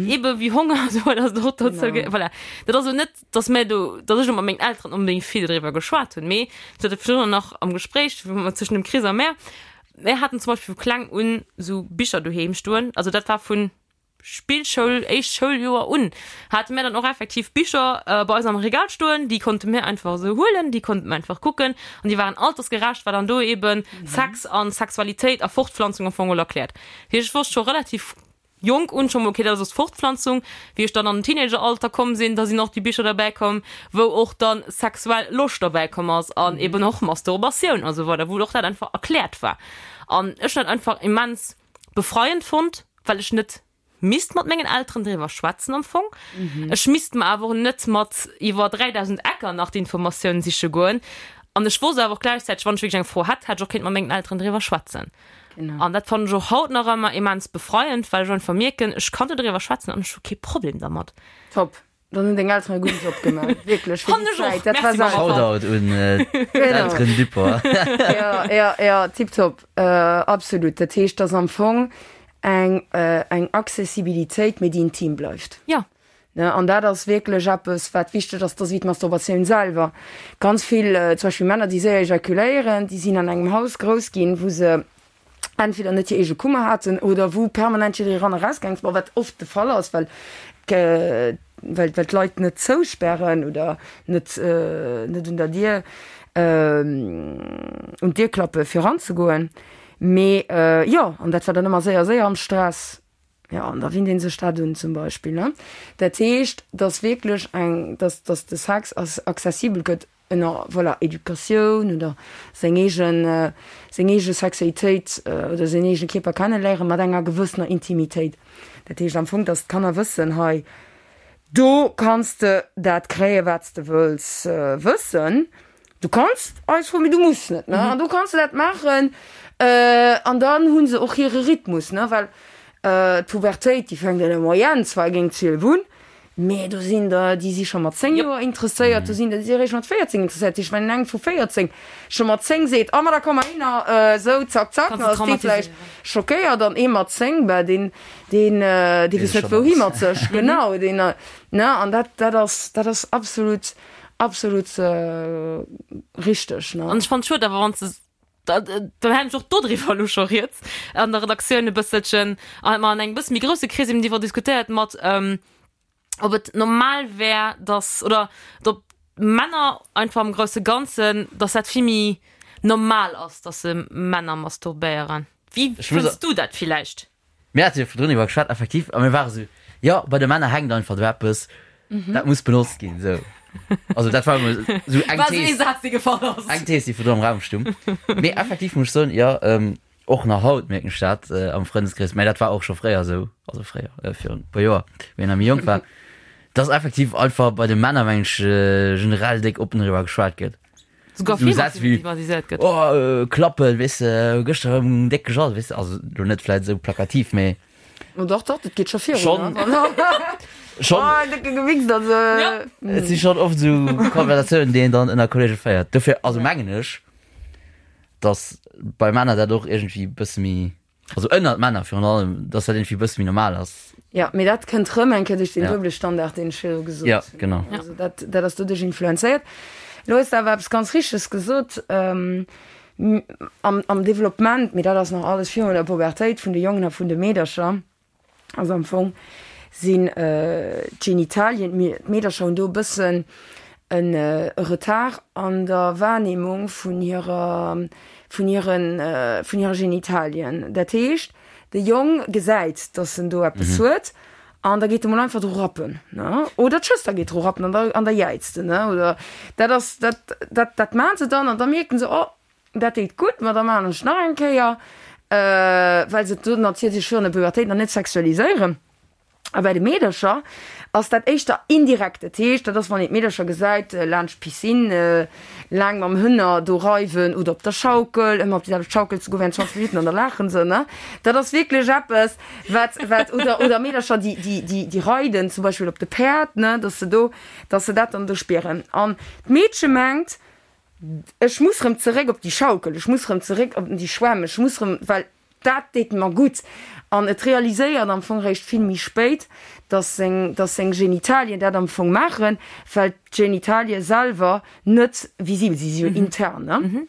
ebe wéi Honger esou dass et och dozou ge voilà. Dat ass elo net, dass mär do, dass ech elo mat mengen Elteren onbedéngt vill driwwer geschwat hunn, mee ech hat et virdrun nach am Gespréich tëschent dem Chris a mär, mär haten zum Beispill vu kleng un esou Bicher doheem stoen, also dat war vun Spillschoul, éischt Schouljoer un, hate mär dann och effektiv Bicher bei eis am Regal stoen, déi konnte mär einfach esou huelen, déi konnte mär einfach kucken an déi waren altersgerecht, war dann do eben Sex an Sexualitéit a Fortpflanzung am Fong all erkläert. Dat heescht, ech wosst scho relativ jonk un scho mol, okay, dat ass Fortpflanzung. Wéi ech dann an den Teenageralter komm sinn, da sinn och déi Bicher derbäi komm, wou och dann sexuell Loscht derbäi komm ass an eben och Masturbatioun a sou weider, wou och dat einfach erkläert war. An ech hunn dat einfach immens befreiend fonnt, well ech net misst mat mengen Elteren driwwer schwätzen am Fong. Ech misst mer awer och net mat iwwer 3000 Ecker nach d'Informatioun siche goen. An ech wosst awer och gläichzäiteg, wann ech wierklech eng Fro hätt, hätt ech och kéint mat mengen Elteren driwwer schwätzen. An dat fannen ech och haut nach ëmmer immens befreiend, well ech einfach mierken, ech kann do driwwer schwätzen an ech hu kee Problem dermat. Top. Dann hunn deng Elteren e gudden Job gemaach. Wierklech, fir Fannen déi ech och. Zäit. Dat war Merci, Mama. selten. Shoutout un d'Elteren Dupont. Ja, ja, ja, tipptopp. Absolut. Dat heescht, dass am Fong eng, eng Accessibilitéit, mee déi intim bleift. Ja. Ne, an dat ass wierklech eppes, wat wichteg ass, dat ass wéi d'Masturbatioun selwer. Ganz vill, zum Beispill Männer, déi séier ejakuléieren, déi sinn an engem Haus grouss ginn, wou se entweder net hir eege Kummer haten oder wou permanent jidderee ran a raus gaang ass, bon, wat oft de Fall ass, well well well d'Leit net zousperren oder net net un der Dier un d'Dier klappe fir eranzegoen. Mee jo, an dat war dann ëmmer séier séier am Stress. Jo, an da winnt ee sech dat un zum Beispill, ne. Dat heescht, dass wierklech eng, dass dass de Sex accessibel gëtt ënner, voilà, Educatioun oder seng eegen, seng eege Sexualitéit oder säin eegene Kierper kenneléiere mat enger gewëssener Intimitéit. Dat heescht am Fong, dass d'Kanner wëssen, hei do kanns de dat kréien, wat s de wëlls wëssen. Du kanns eis froen, mee du muss net, ne? An do kanns de dat maachen. An dann hu se och hire Rhythmus, ne? Well d'Pubertéit, déi fänkt an der Moyenne zwar géint 12 un, Mee do sinn der, déi si scho mat 10 Joer interesséiert, do sinn der, déi si eréischt mat 14 interesséiert. Dat heescht, wann eng vu 14 scho mat 10 seet, Oh ma da komm mer hinner, esou zack zack, dann ass dee vläicht schockéiert. An ee mat 10, bah deen, deen, dee weess net wouhi mat sech. Genau, deen, ne? An dat, dat ass, dat ass absolut, absolut richteg, ne? An ech fannen et schued awer, wann s de Dann hat ech och dodriwwer elo scho rieds an der Redaktioun e bësselchen an hat mer an engem bësse méi grousse Krees eben driwwer diskutéiert mat, ob et normal wär, dass oder ob Männer einfach am grousse Ganzen, dass dat vill méi normal ass, dass se Männer masturbéieren. Wéi fënns du dat villäicht? Mir hate jo virdrun iwwer geschwat, effektiv, a mir ware sou, jo, bei de Männer hänkt einfach do eppes, dat muss benotzt ginn, sou. Also dat war emol sou eng War sou ee Thees, Saz, dee gefall ass. eng Thees, déi virdrun am Raum stung. Mee effektiv muss ech soen, jo, och nach haut mierken ech dat am Frëndeskrees, mä dat war och scho fréier esou, also fréier, virun e puer Joer, wéi een nach méi jonk war, dass effektiv einfach bei de Männer, meng ech, generell déck oppen driwwer geschwat gëtt. Sogar So vill Sätz wéi, stigmatiséiert gëtt. Oh, äh, Klappel, weess de, gëschter erëm déck gejall, weess de, also lo net vläit esou plakativ, mee Oh dach, dach, dat geet scho virun. Schon. ne? schon, Oh, décke gewichst, also. Ja. et si schon oft esou Konversatiounen, déi een dann ënner Kollege féiert. Dofir, also mengen ech, dass bei Männer dat och iergendwéi e bësse méi Also ënnert Männer virun allem, dass dat irgendwie e bësse méi normal ass. Ja, mee dat kënnt rëm eng Kéier duerch den Ja. duebele Standard, deen ech virdru gesot Ja, hunn. genau. Also dat, dat ass doduerch influenzéiert. Elo hues de awer eppes ganz Richteges gesot. Am, am Developpement, mee dat ass nach alles virun der Pubertéit vun de Jongen a vun de Meedercher, also am Fong sinn d'Genitalien, d'Meedercher hunn do e bëssen en Retard an der Wahrnehmung vun hirer, vun hiren, vun hire Genitalien. Dat heescht, de Jong gesäit, dass en do eppes huet an da geet e mol einfach dru rappen, ne? Oder d'Schwëster geet dru rappen an da, an da jäizt en, ne? Oder dat ass, dat, dat, dat maachen se dann an da mierken se, oh, dat deet gutt, ma da maachen ech nach eng Kéier, well se do natierlech virun der Pubertéit nach net sexualiséieren. A bei de Meedercher ass dat éischter indirekt. Dat heescht, dat ass, wann een d'Meedercher gesäit laanscht d'Piscine laang mam Hënner do reiwen oder op der Schaukel, ëmmer op déi selwecht Schaukel ze goen während 20 Minutten an da laachen se, ne? Dat ass wierklech eppes, wat, wat, oder, oder Meedercher, déi, déi, déi, déi reiden zum Beispill op de Päerd, ne, dass se do, dass se dat dann do spieren. An d'Meedche mengt, ech muss rëm zeréck op déi Schaukel, ech muss rëm zeréck op déi Schwämm, ech muss rëm, well Dat deet mer gutt. An et realiséiert am Fong réischt vill méi spéit, dass seng, dass seng Genitalien dat am Fong maachen, well d'Genitalie selwer net visibel sinn, si si jo intern, ne?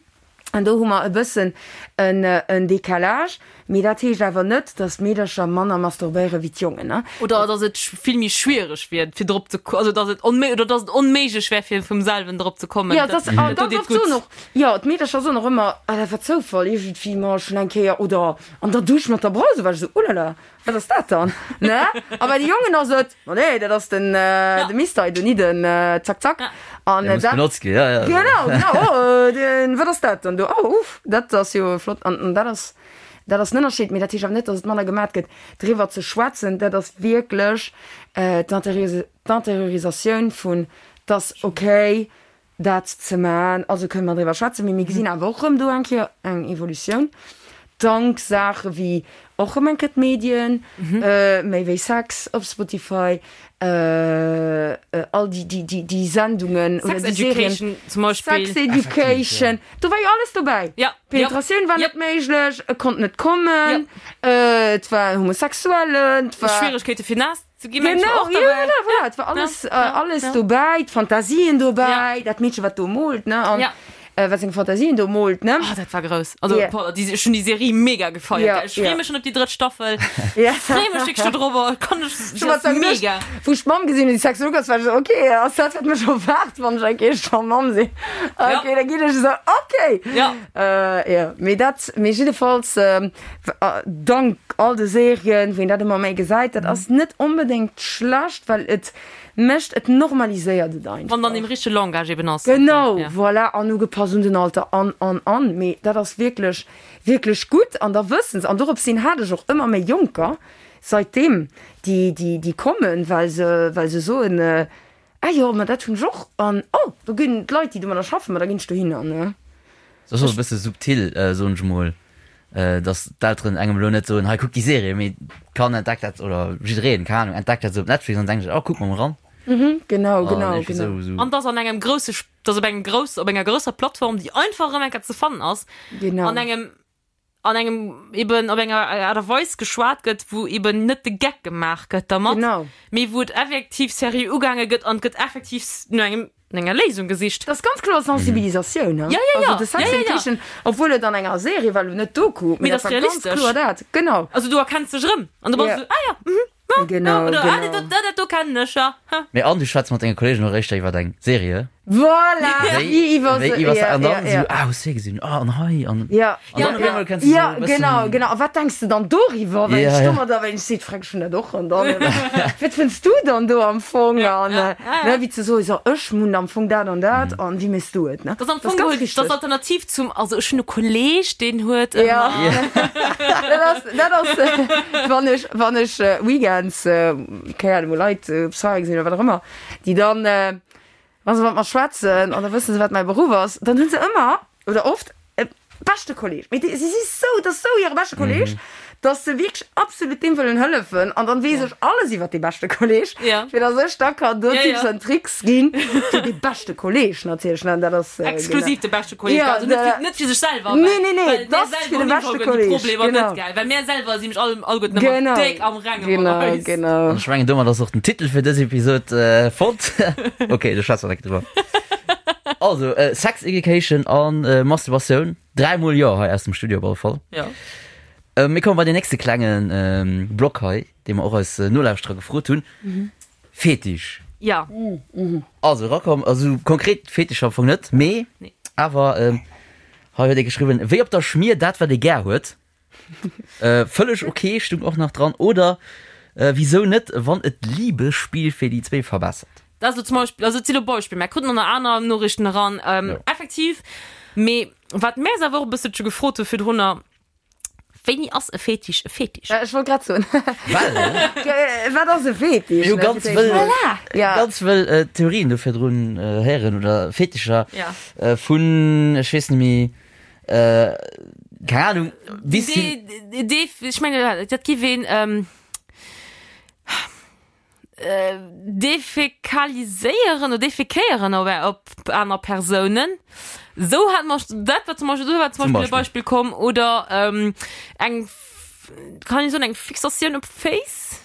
An do hu mer e bëssen en, en Décalage. Mee dat heescht awer net, dass d'Meedercher manner masturbéiere wéi d'Jongen, ne? Oder dass et vill méi schwiereg wier, fir drop ze, also dass et onméi, oder dass et onméiglech wär, fir vum selwen drop ze kommen. Jo, dass, a ganz oft soen och, Jo, d'Meedercher soen och ëmmer, ah dat war Zoufall, iergendwéi ma schonn eng Kéier oder an der Dusch mat der Brause war ech esou, ulala, wat ass dat dann, ne? A bei de Jongen ass et, ma nee, dat ass den de Mister hei do, ni den Zack Zack. An dat. Muss benotzt ginn, ja, ja. Genau, genau, oh den, wat ass dat dann do, oh uff, dat ass jo flott. An dat ass, dat ass den Ënnerscheed, mee dat heescht awer net, datt et manner gemat gëtt. Driwwer ze schwätzen, dat ass wierklech d'Interiorisatioun vun, 't ass okay, dat ze man. Also kënne mer driwwer schwätzen, mee mir gesinn awer och erëm do eng Kéier eng Evolutioun, dank Saache wéi och erëm eng Kéier d'Medien, méi wéi Sex op Spotify, all déi, déi, déi, déi Sendungen oder déi Serien. Sex Education zum Beispill. Sex Education, do war jo alles dobäi. Ja. Penetratioun war net méiglech, e konnt net kommen, et war en Homosexuellen, et war. Schwieregkeete fir naass Ze gi mengt Genau, och ja, dabei. voilà, voilà, et war alles, Ja, äh, ja, alles ja. dobäi, d'Fantasien dobäi, Ja. dat Meedche wat do moolt, ne, an Ja. äh, wat seng Fantasien do moolt, ne. Ah, dat war grouss. Also, Ja. boah, déi, ech hunn déi Serie mega gefeiert. Ja, gell. Ech freeë ja. mech schon op déi drëtt Staffel. Ja. Ech freeë mech wierklech dodrobber. Kann ech, Schon dat wat ass mega. Wou ech d'Mamm gesinn hunn, déi Sexologin ass, war ech esou, okay, ass dat wat mech erwaart, wann ech eng Kéier scho Mamm sinn? Okay, da ginn ech esou, okay. Ja. Äh, ja, mee dat, mee jiddefalls, ähm, Dank all de Serien, wou een dat ëmmer méi gesäit, dat ass net onbedéngt schlecht, well et mécht, et normaliséiert et einfach. Wann dann deem richtege Langage eben ass. Genau, voilà, an ugepasst un den Alter an, an, an. Mee dat ass wierklech, wierklech gutt an da wëssen se, an dorops hin hat ech och ëmmer méi Jonker saitdeem, déi, déi, déi kommen, well se, well se soen, Ah jo, ma dat hunn ech och. An oh, do ginn d'Leit, déi domadder schaffen, ma da ginn ech dohinner, ne? Dat ass och e bësse subtil, soen ech emol, datt d'Elteren engem elo net soen, hei kuck déi Serie, mee d'Kand entdeckt dat, oder jiddereen, keng Ahnung, entdeckt dat esou op Netflix an denkt sech, oh kuck mer mol eran. Mhm, genau, genau, An genau. esou. An dass an engem grousse, dass op engem grouss, op enger grousser Plattform, déi einfach erëm eng Kéier ze fannen ass, Genau. an engem an engem eben op enger Aart a Weis geschwat gëtt, wou eben net de Geck gemaach gëtt dermat, Genau. mee wou et effektiv seriö ugaange gëtt an et gëtt effektiv no engem, no enger Léisung gesicht. Dat ass ganz kloer Sensibilisatioun, Ja, ja, ja. Also de Sex Ja, ja, ja. Education, obwuel et an enger Serie war, elo net Doku, Mee mee dat dat ass war ganz realistesch. kloer dat. Genau. Also du erkenns dech erëm an du bass Ja. esou, ah ja, mhm. Genau, Oder, ah, genau. dat, dat, dat do kennen ech, ja. Ha. Mee an du schwätz mat denge Kollegen och éischter iwwer eng Serie. Voilà, wéi iwwer wéi se, iwwer ja, an dann ja, ja. esou, ah, hues du hie gesinn, ah, an hei, an. Ja, An dann ja, op eemol kenns du ja, esou e bëssen. genau, genau. A wat denks de dann doriwwer, wenn Ja, ech ja. domadder, wenn ech seet, frag ech dat och, an dann, wat fënns du dann do am Fong? An, ja, ja. ne, wéi ze soen, so, ech hunn am Fong dat an dat, an wéi méchs du et, ne? Dat ass am Das Fong ganz geholl wichteg. dat Alternativ zum, also ech hunn e Kolleg, deen huet ëmmer. Ja. Dat ass, dat ass, wann ech, wann ech Weekends, keng Ahnung, wou Leit op Soirée sinn oder wat och ëmmer, déi dann, wa se mat mer schwätzen an da wësse se, wat mäi Beruff ass, dann hu se ëmmer oder oft e beschte Kolleg. Mee déi, si si sou, dat ass sou hire beschte Kolleg, dass se wierklech absolut deem wëllen hëllefen an dann weess ech alles iwwert dee beschte Kolleg, Ja. fir dass ech da kann do Ja, Tipps ja. an Tricks ginn fir dee beschte Kolleg natierlech, ne, dat ass, Exklusiv de beschte Kolleg, Ja, also net da- fir, net fir sech selwer, Nee, well, nee, nee, well mär dat ass selwer fir de hunn beschte iwwerhaupt déi Kolleg, Problemer genau. net, gell, well mär selwer si mech all, alleguerten ëmmer Genau, déck am Renge mat genau, eis. genau. An ech mengen, domat ass och den Titel fir dës Episod fonnt. Ok, do schwätze mer direkt driwwer. Also, Sex Education an Masturbatioun. Dräimol Jo hei aus dem Studio op alle Fall. Ja. Mir komme bei den nächste klenge Block hei, dee mer och eis Nolauschterer gefrot hunn. Fetisch. Ja. Also erakomm, also konkret Fetischer am Fong net, mee Nee. awer hei huet ee geschriwwen, wéi op der Schmier dat wat ee gär huet. Vëlleg ok stung och nach dran. Oder wisou net, wann et d'Liebesspill fir déi zwéi verbessert. Dat ass elo zum Beispill, also et si lo Beispiller, mär kruten och nach aner Noriichten eran, effektiv. Mee wat mär eis awer och e bësselche gefrot hu virdrunner, Wéini ass e Fetisch e Fetisch? Ech wollt grad soen. Well. Wat ass e Fetisch? Mir hu ganz wëll, Voilà. ganz wëll Theorien do virdrun héieren oder Fetischer vun, ech weess net méi, Keng Ahnung, bis hin. Dee, ech mengen, dat giff een defekaliséieren oder defekéieren op op aner Persounen. Sou hat mer, dat war zum Beispill, do war zum Beispill e Beispill komm. Oder eng, kann ee soen, eng Fixatioun op Féiss?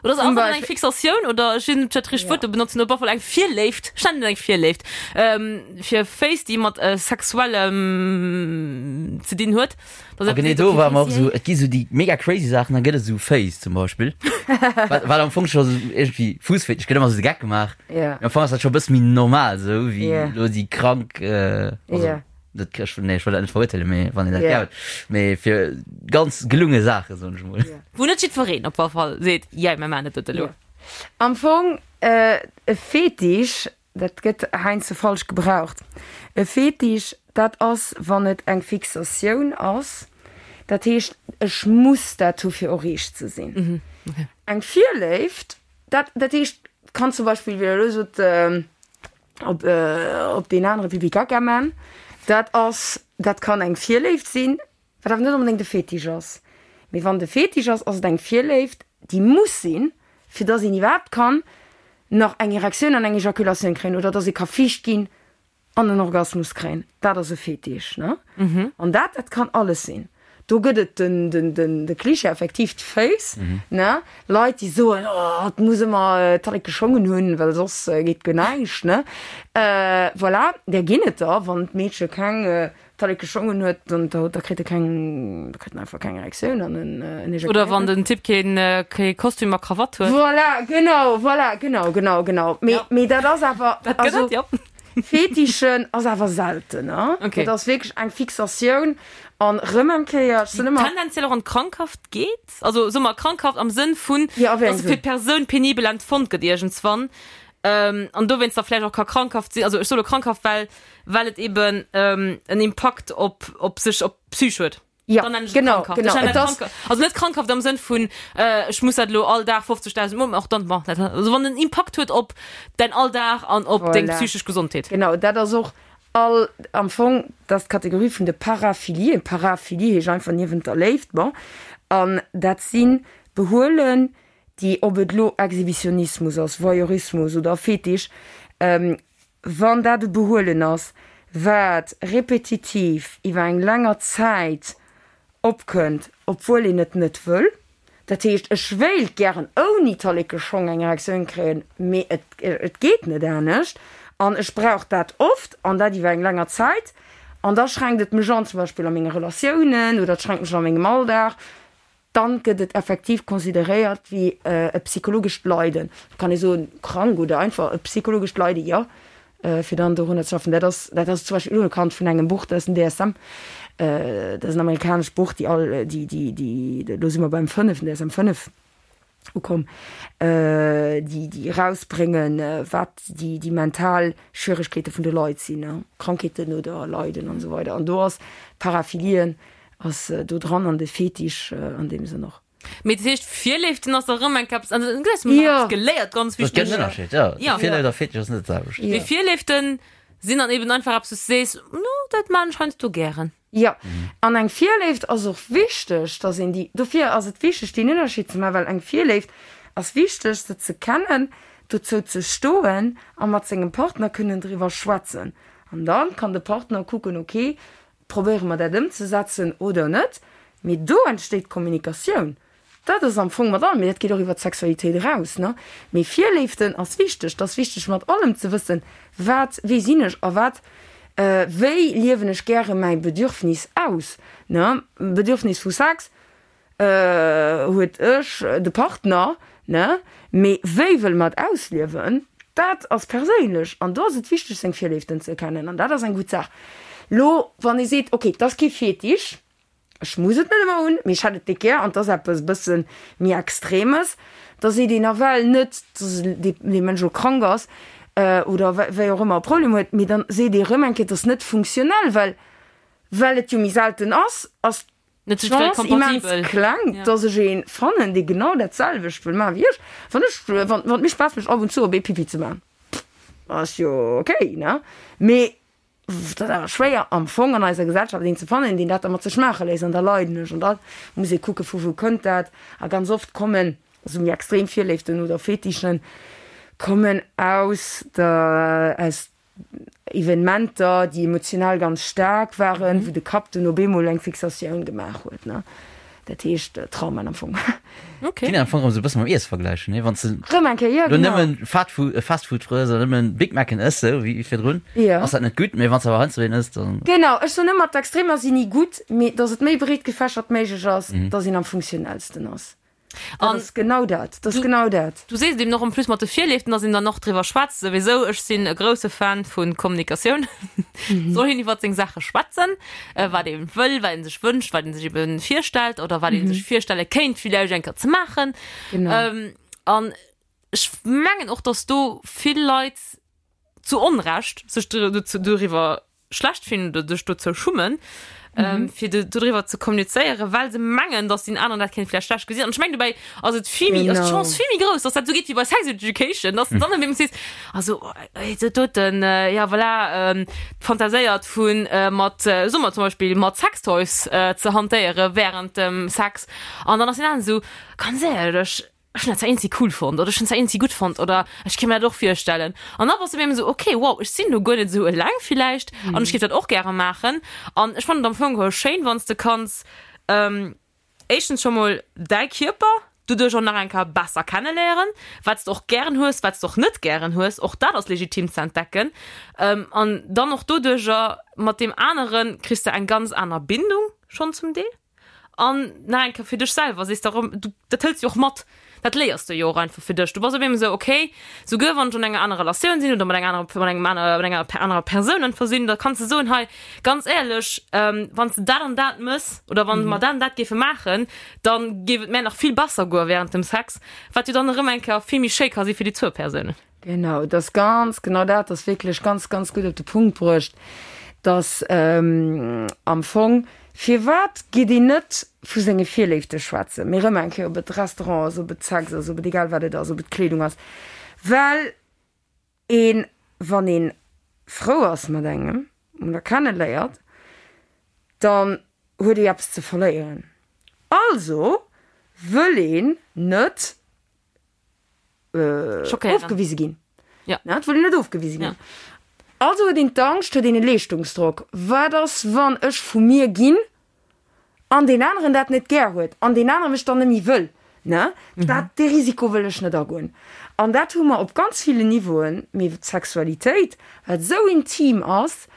Oder ass einfach eng Fixatioun oder ech weess net, ob ech dat richtegt Wuert do benotzen, op alle Fall eng Virléift, ech nennen et eng Virléift, fir Féiss, déi mat sexuellem ze dinn huet. A genee do ware mer och esou, et gi sou déi mega crazy Saachen, da gëtt et esou Féiss zum Beispill, wat wat am Fong scho sou iergendwéi Fuussfetisch, gëtt ëmmer sou de Geck gemaach, mee am Fong ass dat scho e bësse méi normal esou wéi elo déi krank, also Dat, ech, nee, ech wëll dat net verurteelen, mee wann een dat gär huet. Mee fir ganz gelunge Saachen, soen ech mol. Wou net jiddwereen op alle Fall seet, jei, mir maachen dat elo. Am Fong, e Fetisch, dat gëtt heiansdo falsch gebraucht. E Fetisch, dat ass, wann et eng Fixatioun ass. Dat heescht, ech muss dat hu fir erreecht ze sinn. Eng Virléift, dat, dat heescht, kann zum Beispill, wéi Der elo sot, op, op deen anere Pipi Kaka man, dat ass, dat kann eng Virléift sinn, wat awer net onbedéngt e Fetisch ass. Mee wann et e Fetisch ass, ass et eng Virléift, déi muss sinn, fir dass een iwwerhaapt kann nach eng Erektioun an eng Ejakulatioun kréien oder dass ee ka fiicht ginn an en Orgasmus kréien. Dat ass e Fetisch, ne? An dat, dat kann alles sinn. Do gëtt et den, den, den, de Cliché effektiv, d'Féiss, ne? Leit, déi soen, oh, et muss ëmmer d'Talleke Schongen hunn, well soss geet guer näischt, ne? Voilà, där ginn et der. Wann d'Meedche keng Talleke Schongen huet, dann da, da kritt e keng, da kritt en einfach keng Erektioun an en, en ejakuléiert. Oder wann den Typ keen, kee Kostüm a Krawatt huet. Voilà, genau, voilà, genau, genau, genau. Mee, mee dat ass awer, Dat gëtt also. et, jo. Fetischen ass awer selten, ne? Okay. Dat ass wierklech eng Fixatioun an rëm eng Kéier, ech sinn ëmmer. Tendenziell och an d'Krankhaft geet? Also soe mer krankhaft am Sënn vun, Ja, a wéi dass engem se fir Sënn? d'Persoun penibel empfonnt gëtt iergendswann an dowéinst da vläicht och ka krankhaft sinn. Also ech soe lo krankhaft, well well et eben en Impakt op op sech op d'Psych huet. Ja, Dann nennen ech et genau, krankhaft. genau. Ech nennen Et et ass- krankhaft. Also net krankhaft am Sënn vun, äh, ech muss dat elo all Dag 50.000 Mol, och dann, bon, dat, also wann en Impakt huet op däin Alldag an op deng Voilà. psychesch Gesondheet. Genau, dat ass och all, am Fong, dat ass d'Kategorie vun de Paraphilien. Paraphilie heescht einfach niewent der Léift, bon. An dat si Behuelen, déi, ob et elo Exhibitionismus ass, Voyeurismus oder Fetisch, ähm, Wann dat e Behuelen ass, wat repetitiv iwwer eng länger Zäit opkënnt, obwuel een et net wëll, dat heescht, ech wéilt gären ouni Talleke-Schong eng Erektioun kréien, mee et et geet net anescht an ech brauch dat oft an dat iwwer eng länger Zäit an da schränkt et mech an, zum Beispill a menge Relatiounen oder et schränkt mech an a mengem Alldag, dann gëtt et effektiv consideréiert wéi e psychologescht Leiden. Et kann ee soen, krank oder einfach e psychologescht Leiden, jo, fir dann dorunner ze schaffen. Dat ass, dat ass zum Beispill unerkannt vun engem Buch, dat ass den DSM, dat ass en amerikanescht Buch, déi all, déi, déi, déi, elo si mer beim fënneften, DSM 5 ukomm, déi, déi erausbréngen, wat déi, déi mental Schwieregkeete vun de Leit sinn, Krankheeten oder Leiden an esou weider. An do ass Paraphilien Ass do dran an de Fetisch an deem Sënn och. Mee dat heescht Virléiften ass da rëm eng Kaps, also du hues mer nach eppes geléiert, ganz Dat gëtt wichteg. en Ënnerscheed, jo. Ja. Virléift a Fetisch ass net dat selwecht. Mee Virléiften sinn dann eben einfach eppes, wou s du sees, no dat maan ech heiansdo gären. Jo, an eng Virléift ass och wichteg, dass een déi, dofir ass et wichteg deen Ënnerscheed ze maachen, well eng Virléift ass wichteg se ze kennen, dozou ze stoen a mat sengem Partner kënnen driwwer schwätzen. An dann kann de Partner kucken, ok, Probéiere mer dat ëmzesetzen oder net? Mee do entsteet d'Kommunikatioun. Dat ass am Fong mat allem, mee dat geet och iwwer d'Sexualitéit eraus, ne? Mee Virléiften ass wichteg. Et ass wichteg mat allem ze wëssen, wat, wie sinn ech a wat. Wéi liewen ech gäre mäi Bedürfnis aus, ne? Bedürfnis vu Sex huet ech, de Partner, ne? Mee wéi wëlle mer et ausliewen, dat ass perséinlech an do ass et wichteg seng Virléiften ze kennen an dat ass eng gutt Saach. Lo wann ee seet, ok, et ass kee Fetisch, Ech muss et net ëmmer hunn, mee ech hätt et déck gär an 't ass eppes e bësse méi Extremes. Da seet een nawell net, dass dee Mënsch elo krank ass oder wéi och ëmmer e Problem huet, mee dann seet ee rëm eng Kéier, 't ass net funktionell, well well et jo méi selten ass, ass d'Chance immens kleng, dass ech ee fannen, dee genau dat selwecht wëll maachen wéi ech. Wann ech, wann et mir Spaass mécht, ab und zu op ee Pipi ze maachen, ass jo okay, ne? Mee Et ass awer schwéier am Fong an eiser Gesellschaft een ze fannen, deen dat da mat sech maache léisst. An da leiden ech. An da muss ee kucken, vu wou kënnt dat. A ganz oft kommen esou méi extrem Virléiften oder Fetischen kommen aus der, aus Evenementer, déi emotional ganz staark waren, wou de Kapp dunn op eemol eng Fixatioun gemaach huet, ne. Dat heescht Traumen am Fong. Okay. Kann een am Fong erëm esou e bësse mam Iesse vergläichen, nee? Wann s de Rëm eng Kéier, jo, lo genau. nëmmen Fast-Food, Fast Food frëss oder nëmmen Big Macen ëss, sou wéi virdrun, Jo. ass dat net gutt, mee wann s de awer heiansdo een ëss, dann. Genau, ech soen ëmmer, d'Extremer sinn ni gutt, mee datt et méi breet gefächert méiglech ass, datt een am funktionellsten ass. Dat An ass genau dat, dat ass du, genau dat. du sees et eben och en plus mat de Virléiften, datt een dann och driwwer schwätzt souwisou. Ech sinn e grousse Fan vu Kommunikatioun. Soll een iwwert seng Saache schwätzen, wat ee wëll, wat ee sech wënscht, wat ee sech eben virstellt oder wat ee sech virstelle kéint villäicht eng Kéier ze maachen. Genau. An ech mengen och, datt do vill Leit zu Onrecht sech doriwwer schlecht fillen oder sech dozou schummen, fir dodriwwer ze kommunizéieren, well se mengen, datt deen aneren dat kéint vläicht schlecht gesinn. An ech mengen, dobäi ass et vill méi, ass d'Chance vill méi grouss, datt dat esou geet wéi bei Sex Education, datt s de dann op eemol sees, also dat doten, ja voilà, fantaséiert vu mat, soe mer zum Beispill, mat Sextoys ze hantéiere wärend dem Sex. An dann ass deen aneren esou, ganz éierlech, ech hunn dat zwar eenzi cool fonnt oder ech hunn zwar eenzi gutt fonnt oder ech kéint mir dat och virstellen. An da bass du op eemol esou, okay, wow, ech sinn do guer net esou eleng villäicht an ech géif dat och gäre maachen. An ech fannen et am Fong geholl schéin, wann s de kanns éischtens scho mol däi Kierper doduerch och nach eng Kéier besser kenneléieren, wat s de och gären hues, wat s de och net gären hues, och dat ass legitim ze entdecken. An dann och doduercher mat deem anere kriss de eng ganz aner Bindung schonn zum Deel. An nach eng Kéier fir dech selwer, sees de erëm, du, dat hëls du jo och mat, dat léiers de jo och einfach fir dech. Du bass op eemol esou, okay, souguer wann ech an enger anerer Relatioun sinn oder mat enger anerer, mat engem aner, mat enger anerer Persoun einfach sinn, da kanns de soen, hei, ganz éierlech, wann s de dat an dat mëss oder wann mer dat an dat géife maachen, da géif et mär nach vill besser goe während dem Sex, wat jo dann erëm eng Kéier vill méi schéi ka si fir déi zwou Persounen. Genau, et ass ganz genau dat, ass wierklech ganz, ganz gutt op de Punkt bruecht, dass am Fong, firwat geet een net vu senge Virléifte schwätzen, mee erëm eng Kéier, ob et Restaurant ass, ob et Sex ass, ob et egal wat et ass, ob et Kleedung ass, well een, wann ee frou ass mat engem oder kenneléiert, dann huet ee eppes ze verléieren. Also wëll een net ofgewise ginn. Ja. Na, et wëll een net ofgewise ginn. Ja. Also huet een d'Angscht, huet een e Leeschtungsdrock. Wat ass, wann ech vu mir ginn an deen aneren dat net gär huet an deen anere mech dann net méi wëll? Ne? Mhm. Dat, dee Risiko wëll ech net agoen. An dat hu mer op ganz villen Niveauen, mee d'Sexualitéit, wat esou intim ass,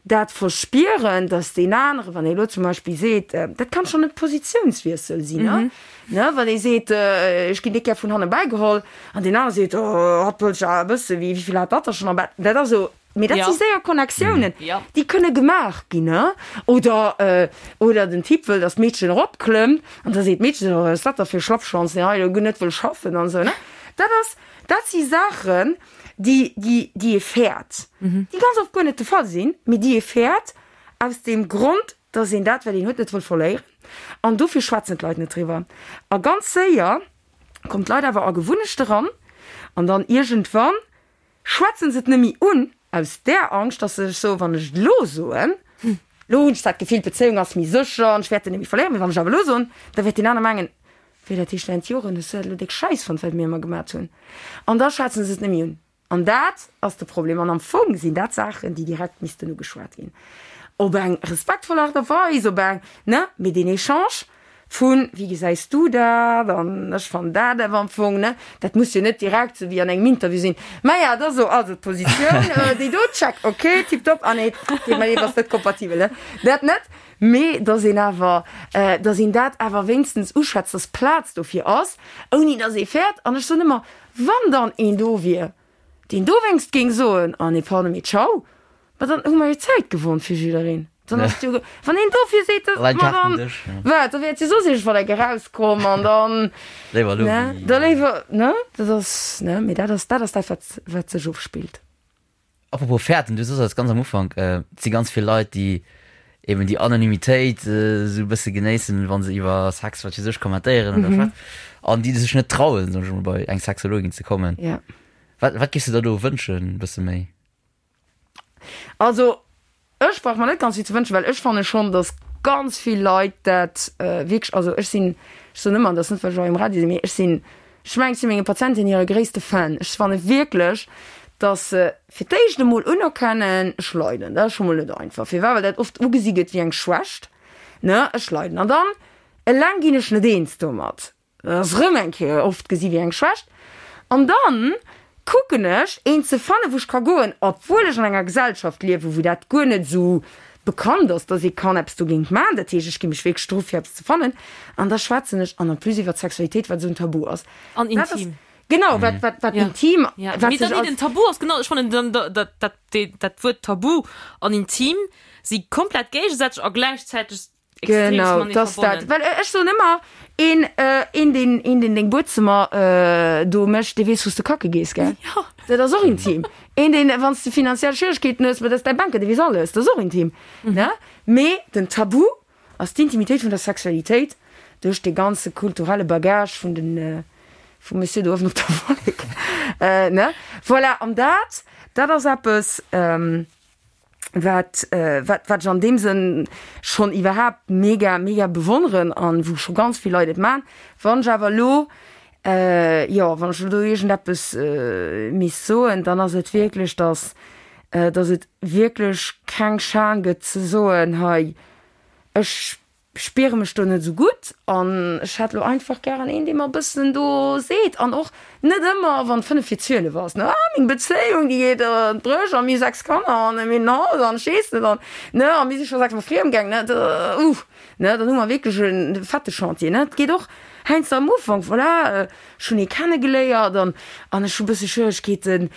dat Verspieren, dass deen anere, wann ee lo zum Beispill seet, dat kann schonn e Positiounswiessel sinn, ne, ne, wann ee seet, ech ginn déck gär vun hanne bäigeholl, an deen anere seet, oh, hatt wëllt jo awer e bësse, wéi vill hat hatt da schonn am Bett? Dat ass esou, mee dat si séier Connectiounen, déi kënne gemaach ginn, ne. Oder, oder den Typ wëll, dass d'Meedchen eropklëmmt, an da seet d'Meedchen, oh, wat ass dat da fir e Schlappschwanz, deen hei elo guer net wëll schaffen an esou, ne. Dat ass, dat si Saachen, déi, déi, déi ee fäert, déi ganz oft guer net de Fall sinn, mee déi ee fäert aus deem Grond, dass een dat, wat een huet, net wëll verléieren. An dofir schwätzen d'Leit net driwwer. A ganz séier kommen d'Leit awer a Gewunnechte ran an dann iergendwann schwätze se et net méi un, aus där Angscht, dass se sech soen, wann ech et elo soen, elo hunn ech zwar d'Gefill, d'Bezéiung ass méi sécher an ech wäert en net méi verléieren, mee wann ech awer elo soen, da wäert deen aner mengen, Wéi, dat heescht während Joren hues du dat elo déck scheiss fonnt, wat mir ëmmer gemat hunn? An da schwätzen se et net méi un. An dat ass de Problem. An am Fong sinn dat Saachen, déi direkt missten ugeschwat ginn. Op eng respektvoll Aart a Weis, op eng, ne, mee deen Echange. Vun, wéi gesäis du dat an ech fannen dat awer am Fong, ne? Dat muss jo net direkt sou wéi an engem Interview sinn. Maja, da so, also d'Positioun, déi do, check, ok, tiptop, ah nee, deet mer leed, ass net kompatibel, ne? Dat net, mee dass een awer, dass een dat awer wéinstens uschwätzt, dass Plaz dofir ass, ouni dass ee fäert. An ech soen ëmmer, wann dann een do wier, deen dowéinst géing soen, ah nee, pardon, mee ciao, ma dann hu mer jo Zäit gewonn fir jiddereen. Dann ass jo, wann een dofir seet, dass, Allein ma dann, Kartendësch, ja. wat, da wäert jo soss iergendwann eng erauskomm an dann, Léiwer elo ne, wéi. da léiwer, ne, dat ass, ne, mee dat ass, dat ass dat, wat, wat sech ofspillt. Apropos fäerten, du sos eis ganz am Ufank, et si ganz vill Leit, déi eben déi Anonymitéit esou e bësse genéissen, wa se iwwer Sex, wat weess ech, kommentéieren oder schwätzen, an déi sech net trauen, soen ech emol, bei eng Sexologin ze kommen. Ja. Wat, wat géifs du der do wënschen, e bësse méi? Also, ech brauch mer net ganz vill ze wënschen, well ech fanne schonn, datt ganz vill Leit dat wierklech, also ech sinn, ech soen ëmmer, an dat ass net, well ech hei um Radio sinn, mee ech sinn, ech mengen, ech si menge Patienten hire gréisste Fan. Ech fanne wierklech, datt se fir d'éischt emol unerkennen, ech leiden, dat ass scho mol net einfach. Firwat? Well dat oft ugesi gëtt wéi eng Schwächt, ne, ech leiden. An dann eleng ginn ech net eens domat. Dat ass erëm eng Kéier oft gesi wéi eng Schwächt. An dann kucken ech, een ze fannen, wou ech ka goen, obwuel ech an enger Gesellschaft liewen, wou dat guer net esou bekannt ass, dass ee kann eppes dogéint maachen. Dat heescht, ech gi mech wierklech dru fir eppes ze fannen. An da schwätzen ech, an en plus iwwer d'Sexualitéit, wat esou en Tabu ass. An Dat ass intim. genau, wat, wat, wat Ja. intim, Ja. wat Mee sech dann als den Tabu ass genau, ech fannen dann dat, dat, dat, dat Wuert Tabu an intim si komplett géigesätzlech a gläichzäiteg Genau, dass dat, well ech soen ëmmer, een, een deen, een deen deng Buedzëmmer do mécht, dee weess wou s de kacke gees, gell? Jo. Dat ass och intim. Een deen, wann s de finanziell Schwieregkeeten hues, ma dat ass däi Banker, dee weess alles, dat ass och intim, ne? Mee den Tabu ass d'Intimitéit vun der Sexualitéit duerch dee ganze kulturelle Bagage vun den, vum Monsieur do uewen op der Wollek, ne? Voilà, an dat, dat ass eppes, wat wat wat ech an deem Sënn schonn iwwerhaapt mega mega bewonneren an wou scho ganz vill Leit et man. Wann ech awer elo jo wann ech elo do iergendeppes misst soen, dann ass et wierklech, datt datt et wierklech keng Schan gëtt ze soen, hei ech spiere mech do net esou gutt an ech hätt lo einfach gären een, dee mer e bëssen do seet an och net ëmmer, wann 5 vir 12 ass, ne, ah meng Bezéiung, déi geet an d'Bréch a mir hu 6 Kanner an mir hunn en Haus an ech weess net an, ne, a mir si scho 6 mol friem gaang, ne, uh, ne, dann hu mer wierklech e fette Chantier, ne. Et geet och heiansdo am Ufank, voilà, ech hunn ee kennegeléiert an an ech hu bësse Schwieregkeeten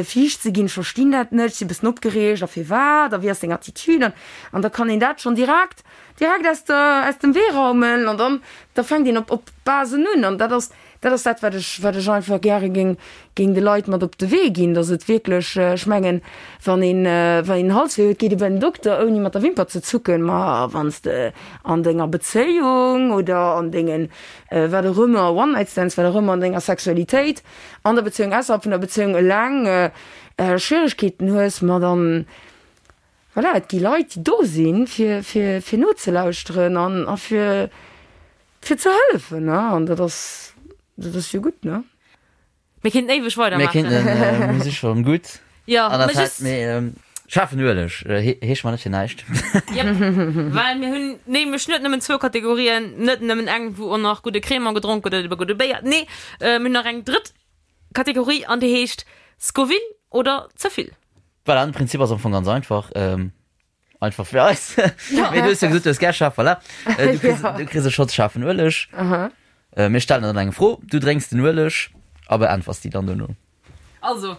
fiicht ze ginn, ech verstinn dat net, ech si bëssen opgereegt a firwat a wéi ass deng Attitude an an da kann een dat schonn direkt direkt aus der aus dem Wee raumen an dann da fänkt een op op Basen un an dat ass dat ass dat wat ech wat ech einfach gäre géing géing de Leit mat op de Wee ginn, datt et wierklech ech mengen wann een wann een Halswéi huet geet ee bei den Dokter ouni mat der Wimper ze zucken, ma wann s de an denger Bezéiung oder an dengen wat och ëmmer, One-Night-Stands, wat och ëmmer an denger Sexualitéit, an der Bezéiung, ausserhalb vun der Bezéiung eleng Schwieregkeeten hues, ma dann, voilà, et gi Leit, déi do sinn, fir, fir, fir nozelauschteren an, a fir, fir ze hëllefen, ne, an dat ass, dat ass jo gutt, ne. Mir kéinten éiweg Mir weidermaachen. kéinten, mir si schonn gutt Jo, an der mä Zäit, just. mee schaarfen Ueleg heescht mer net fir näischt. Jep, well mir hunn nämlech net nëmmen zwou Kategorien, net nëmmen eng, wou och nach gudde Crémant gedronk gëtt oder gudde Béier, nee, mir hunn nach eng drëtt Kategorie an déi heescht Scoville oder ze vill. Voilà, den Prinzip ass am Fong ganz einfach. Einfach fir eis. Mee du hues jo gesot, du hues gär schaarf, voilà. Äh, du kriss, du kriss e Schotz schaarfen Ueleg. Aha. Äh, mir stellen dann eng Fro, du drénks den Ueleg a beäntwers déi dann dono. Also,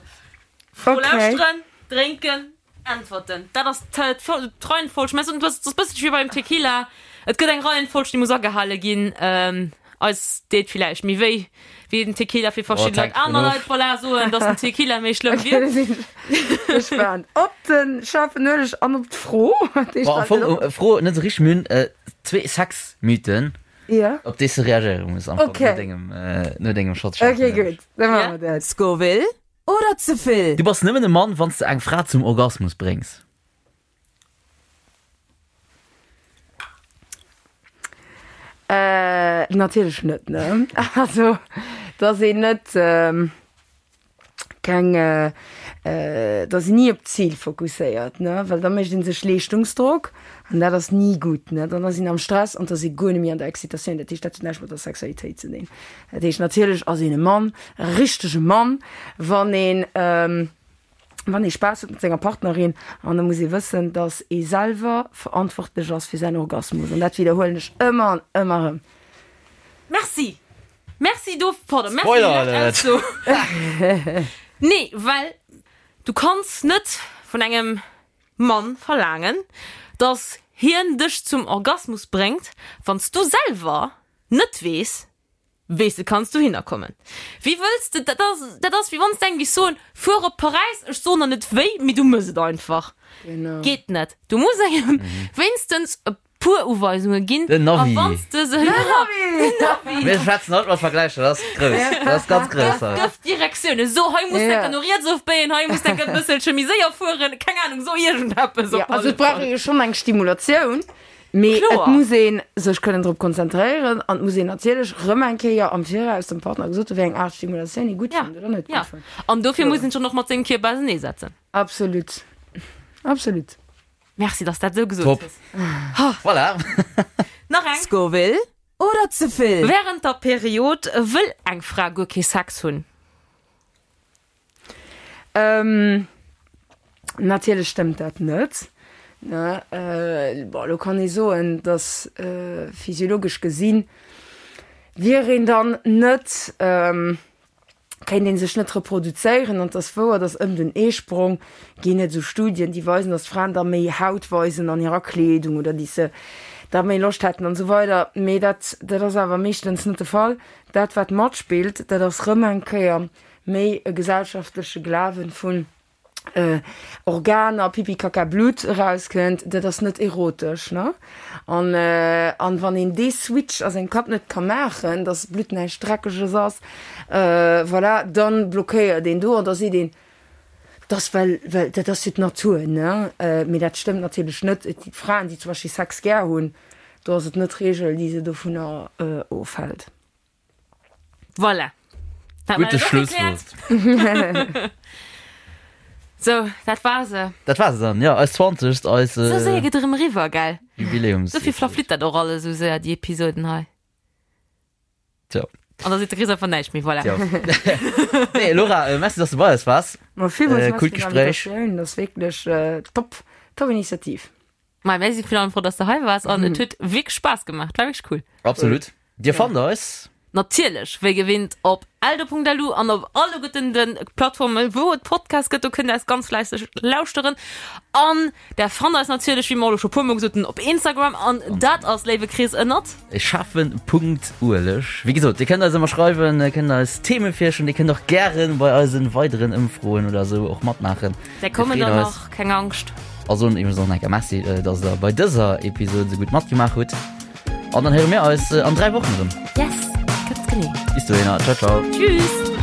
Fro Okay. lauschteren, drénken, äntwerten. Dat ass d'Reihenfolg. Mä du ass e bësselche wéi beim Tequila. Et gëtt eng Reihenfolg, déi muss agehale ginn. Ähm, eis deet villäicht méi wéi wéi den Tequila fir verschidden Leit. Aner Leit, voilà, soen, dass den Tequila méi schlëmm wier. Okay, da sinn ech gespaant op de schaarfen Ueleg an op d'Fro. Déi Bon, am stellt Fong, op. Fro net esou richteg, mir hunn zwee Sexmythen, Ja. op déi s de reagéiere muss am Fong, Okay. no dengem, no dengem Shot schaarfen Okay, Ueleg. gutt, da maache mer dat. Scoville oder ze vill? Du bass nëmmen e Mann, wann s de eng Fra zum Orgasmus bréngs. Äh, natierlech net, ne? Also, dass een net keng. Da sinn ni op d'Zil fokusséiert, ne, well da mécht ee sech Leeschtungsdrock an dat ass ni gutt, ne. Dann ass een am Stress an da ass ee guer net méi an der Excitatioun. Dat heescht, dat huet näischt mat der Sexualitéit ze dinn. Dat heescht, natierlech ass een e Mann, e richtege Mann, wann een, wann ee Spaass huet mat senger Partnerin. An da muss ee wëssen, datt ee selwer verantwortlech ass fir säin Orgasmus. An dat widderhuelen ech ëmmer an ëmmer erëm. Merci! Merci do, pardon, merci Spoiler Alert! Nee, well du kanns net vun engem Mann verlaangen, dass hien dech zum Orgasmus bréngt, wann s du selwer net weess, wéi s de kanns dohinner kommen. Wéi wëlls de, dat ass, dat ass wéi wann s de engem géifs soen, fuer op Paräis, ech soen der net wéi, mee du mëss et einfach. Geet net. Du muss engem wéinstens e puer Uweisunge ginn. Den Navi. A wanns de se. Den Navi. Mir schwätzen haut mat Vergläicher, dat ass grouss. Dat ass ganz grouss haut. Gëff Direktiounen. So, hei muss enker no riets ofbéien, hei muss enker e bësselche méi séier fueren, keng Anung, so iergendeppes op alle Also et brauch Fall. ee jo schonn eng Stimulatioun, mee et Kloer. muss ee sech kënnen drop konzentréieren an et muss een natierlech rëm eng Kéier am Viraus dem Partner gesot hunn, wéi eng Aart Stimulatioun ee gutt Ja, fënnt oder net ja. gutt fënnt. An dofir muss een schonn och mat sengem Kierper auserneesetzen. Absolut. Absolut. Merci, dass dat esou gesot Top. hues. Voilà. Nach eng. Scoville oder ze vill? Während der Period wëll eng Fra guer kee Sex hunn. Ähm, natierlech stëmmt dat net. Ne, äh, bon, elo kann ee soen, dass äh, physiologesch gesinn wier een dann net, ähm, kéint ee sech net reproduzéieren an et ass wouer, datt ëm den Eesprong ginn et esou Studien, déi weisen, datt d'Fraen da méi Haut weisen an hirer Kleedung oder déi se da méi Loscht hätten an esou weider. Mee dat dat ass awer meeschtens net de Fall. Dat wat matspillt, dat ass rëm eng Kéier méi e gesellschaftleche Glawen vun, Organer, Pipi Kaka Blutt erauskënnt, dat ass net erotesch, ne? An, an wann een dee Switch a sengem Kapp net ka maachen, dass Blutt näischt Dreckeges ass, voilà, dann blockéiert een do an da seet een, dat ass well, well dat ass jo d'Natur, ne? Mee dat stëmmt natierlech net. Et gi Fraen, déi zum Beispill Sex gär hunn, do ass et net d'Reegel, déi se dovunner ofhält. Voilà. Dat Gute war Schlusswort. So, dat war se. Dat war se dann, ja, eis 20. Eis Sou séier geet erëm eriwwer, gell? Jubiläums. Dofir verflitt dat och alles sou séier, déi Episoden hei. Tja. An da seet de Chris einfach näischt méi, voilà. Tja. Nee, Laura, äh, merci, dass du bei eis waars. Ma villmools Äh, merci coolt fir Gespräch. d'Invitatioun, dat ass wierklech äh, top, top Initiativ. Ma mir si virun allem frou, dass de hei waars an et huet wierklech Spaass gemaach. Et war wierklech cool. Absolut. Dir fannt eis. Natierlech, wéi gewinnt, op eldo.lu an op alleguerten de Plattformen, wou et Podcasts gëtt. Do kënnt der eis ganz fläisseg lauschteren. An der fannt eis natierlech, wéi mer elo scho puer mol gesot hunn, op Instagram. An dat ass, léiwe Chris, ënnert. Schaffen.ueleg. Wéi gesot, dir kënnt eis ëmmer schreiwen, dir kënnt eis Theme virschloen, dir kënnt och gären bei eisen weideren Ëmfroen oder esou och matmaachen. Där kommen der nach, keng Angscht. A soen iwwregens och nach eng Kéier Merci, dass der bei dëser Episode esou gutt matgemaach hutt. An dann héiere mir eis an 3 Wochen erëm. Yes, ganz genee. Bis dohinner, ciao ciao. Tschüss.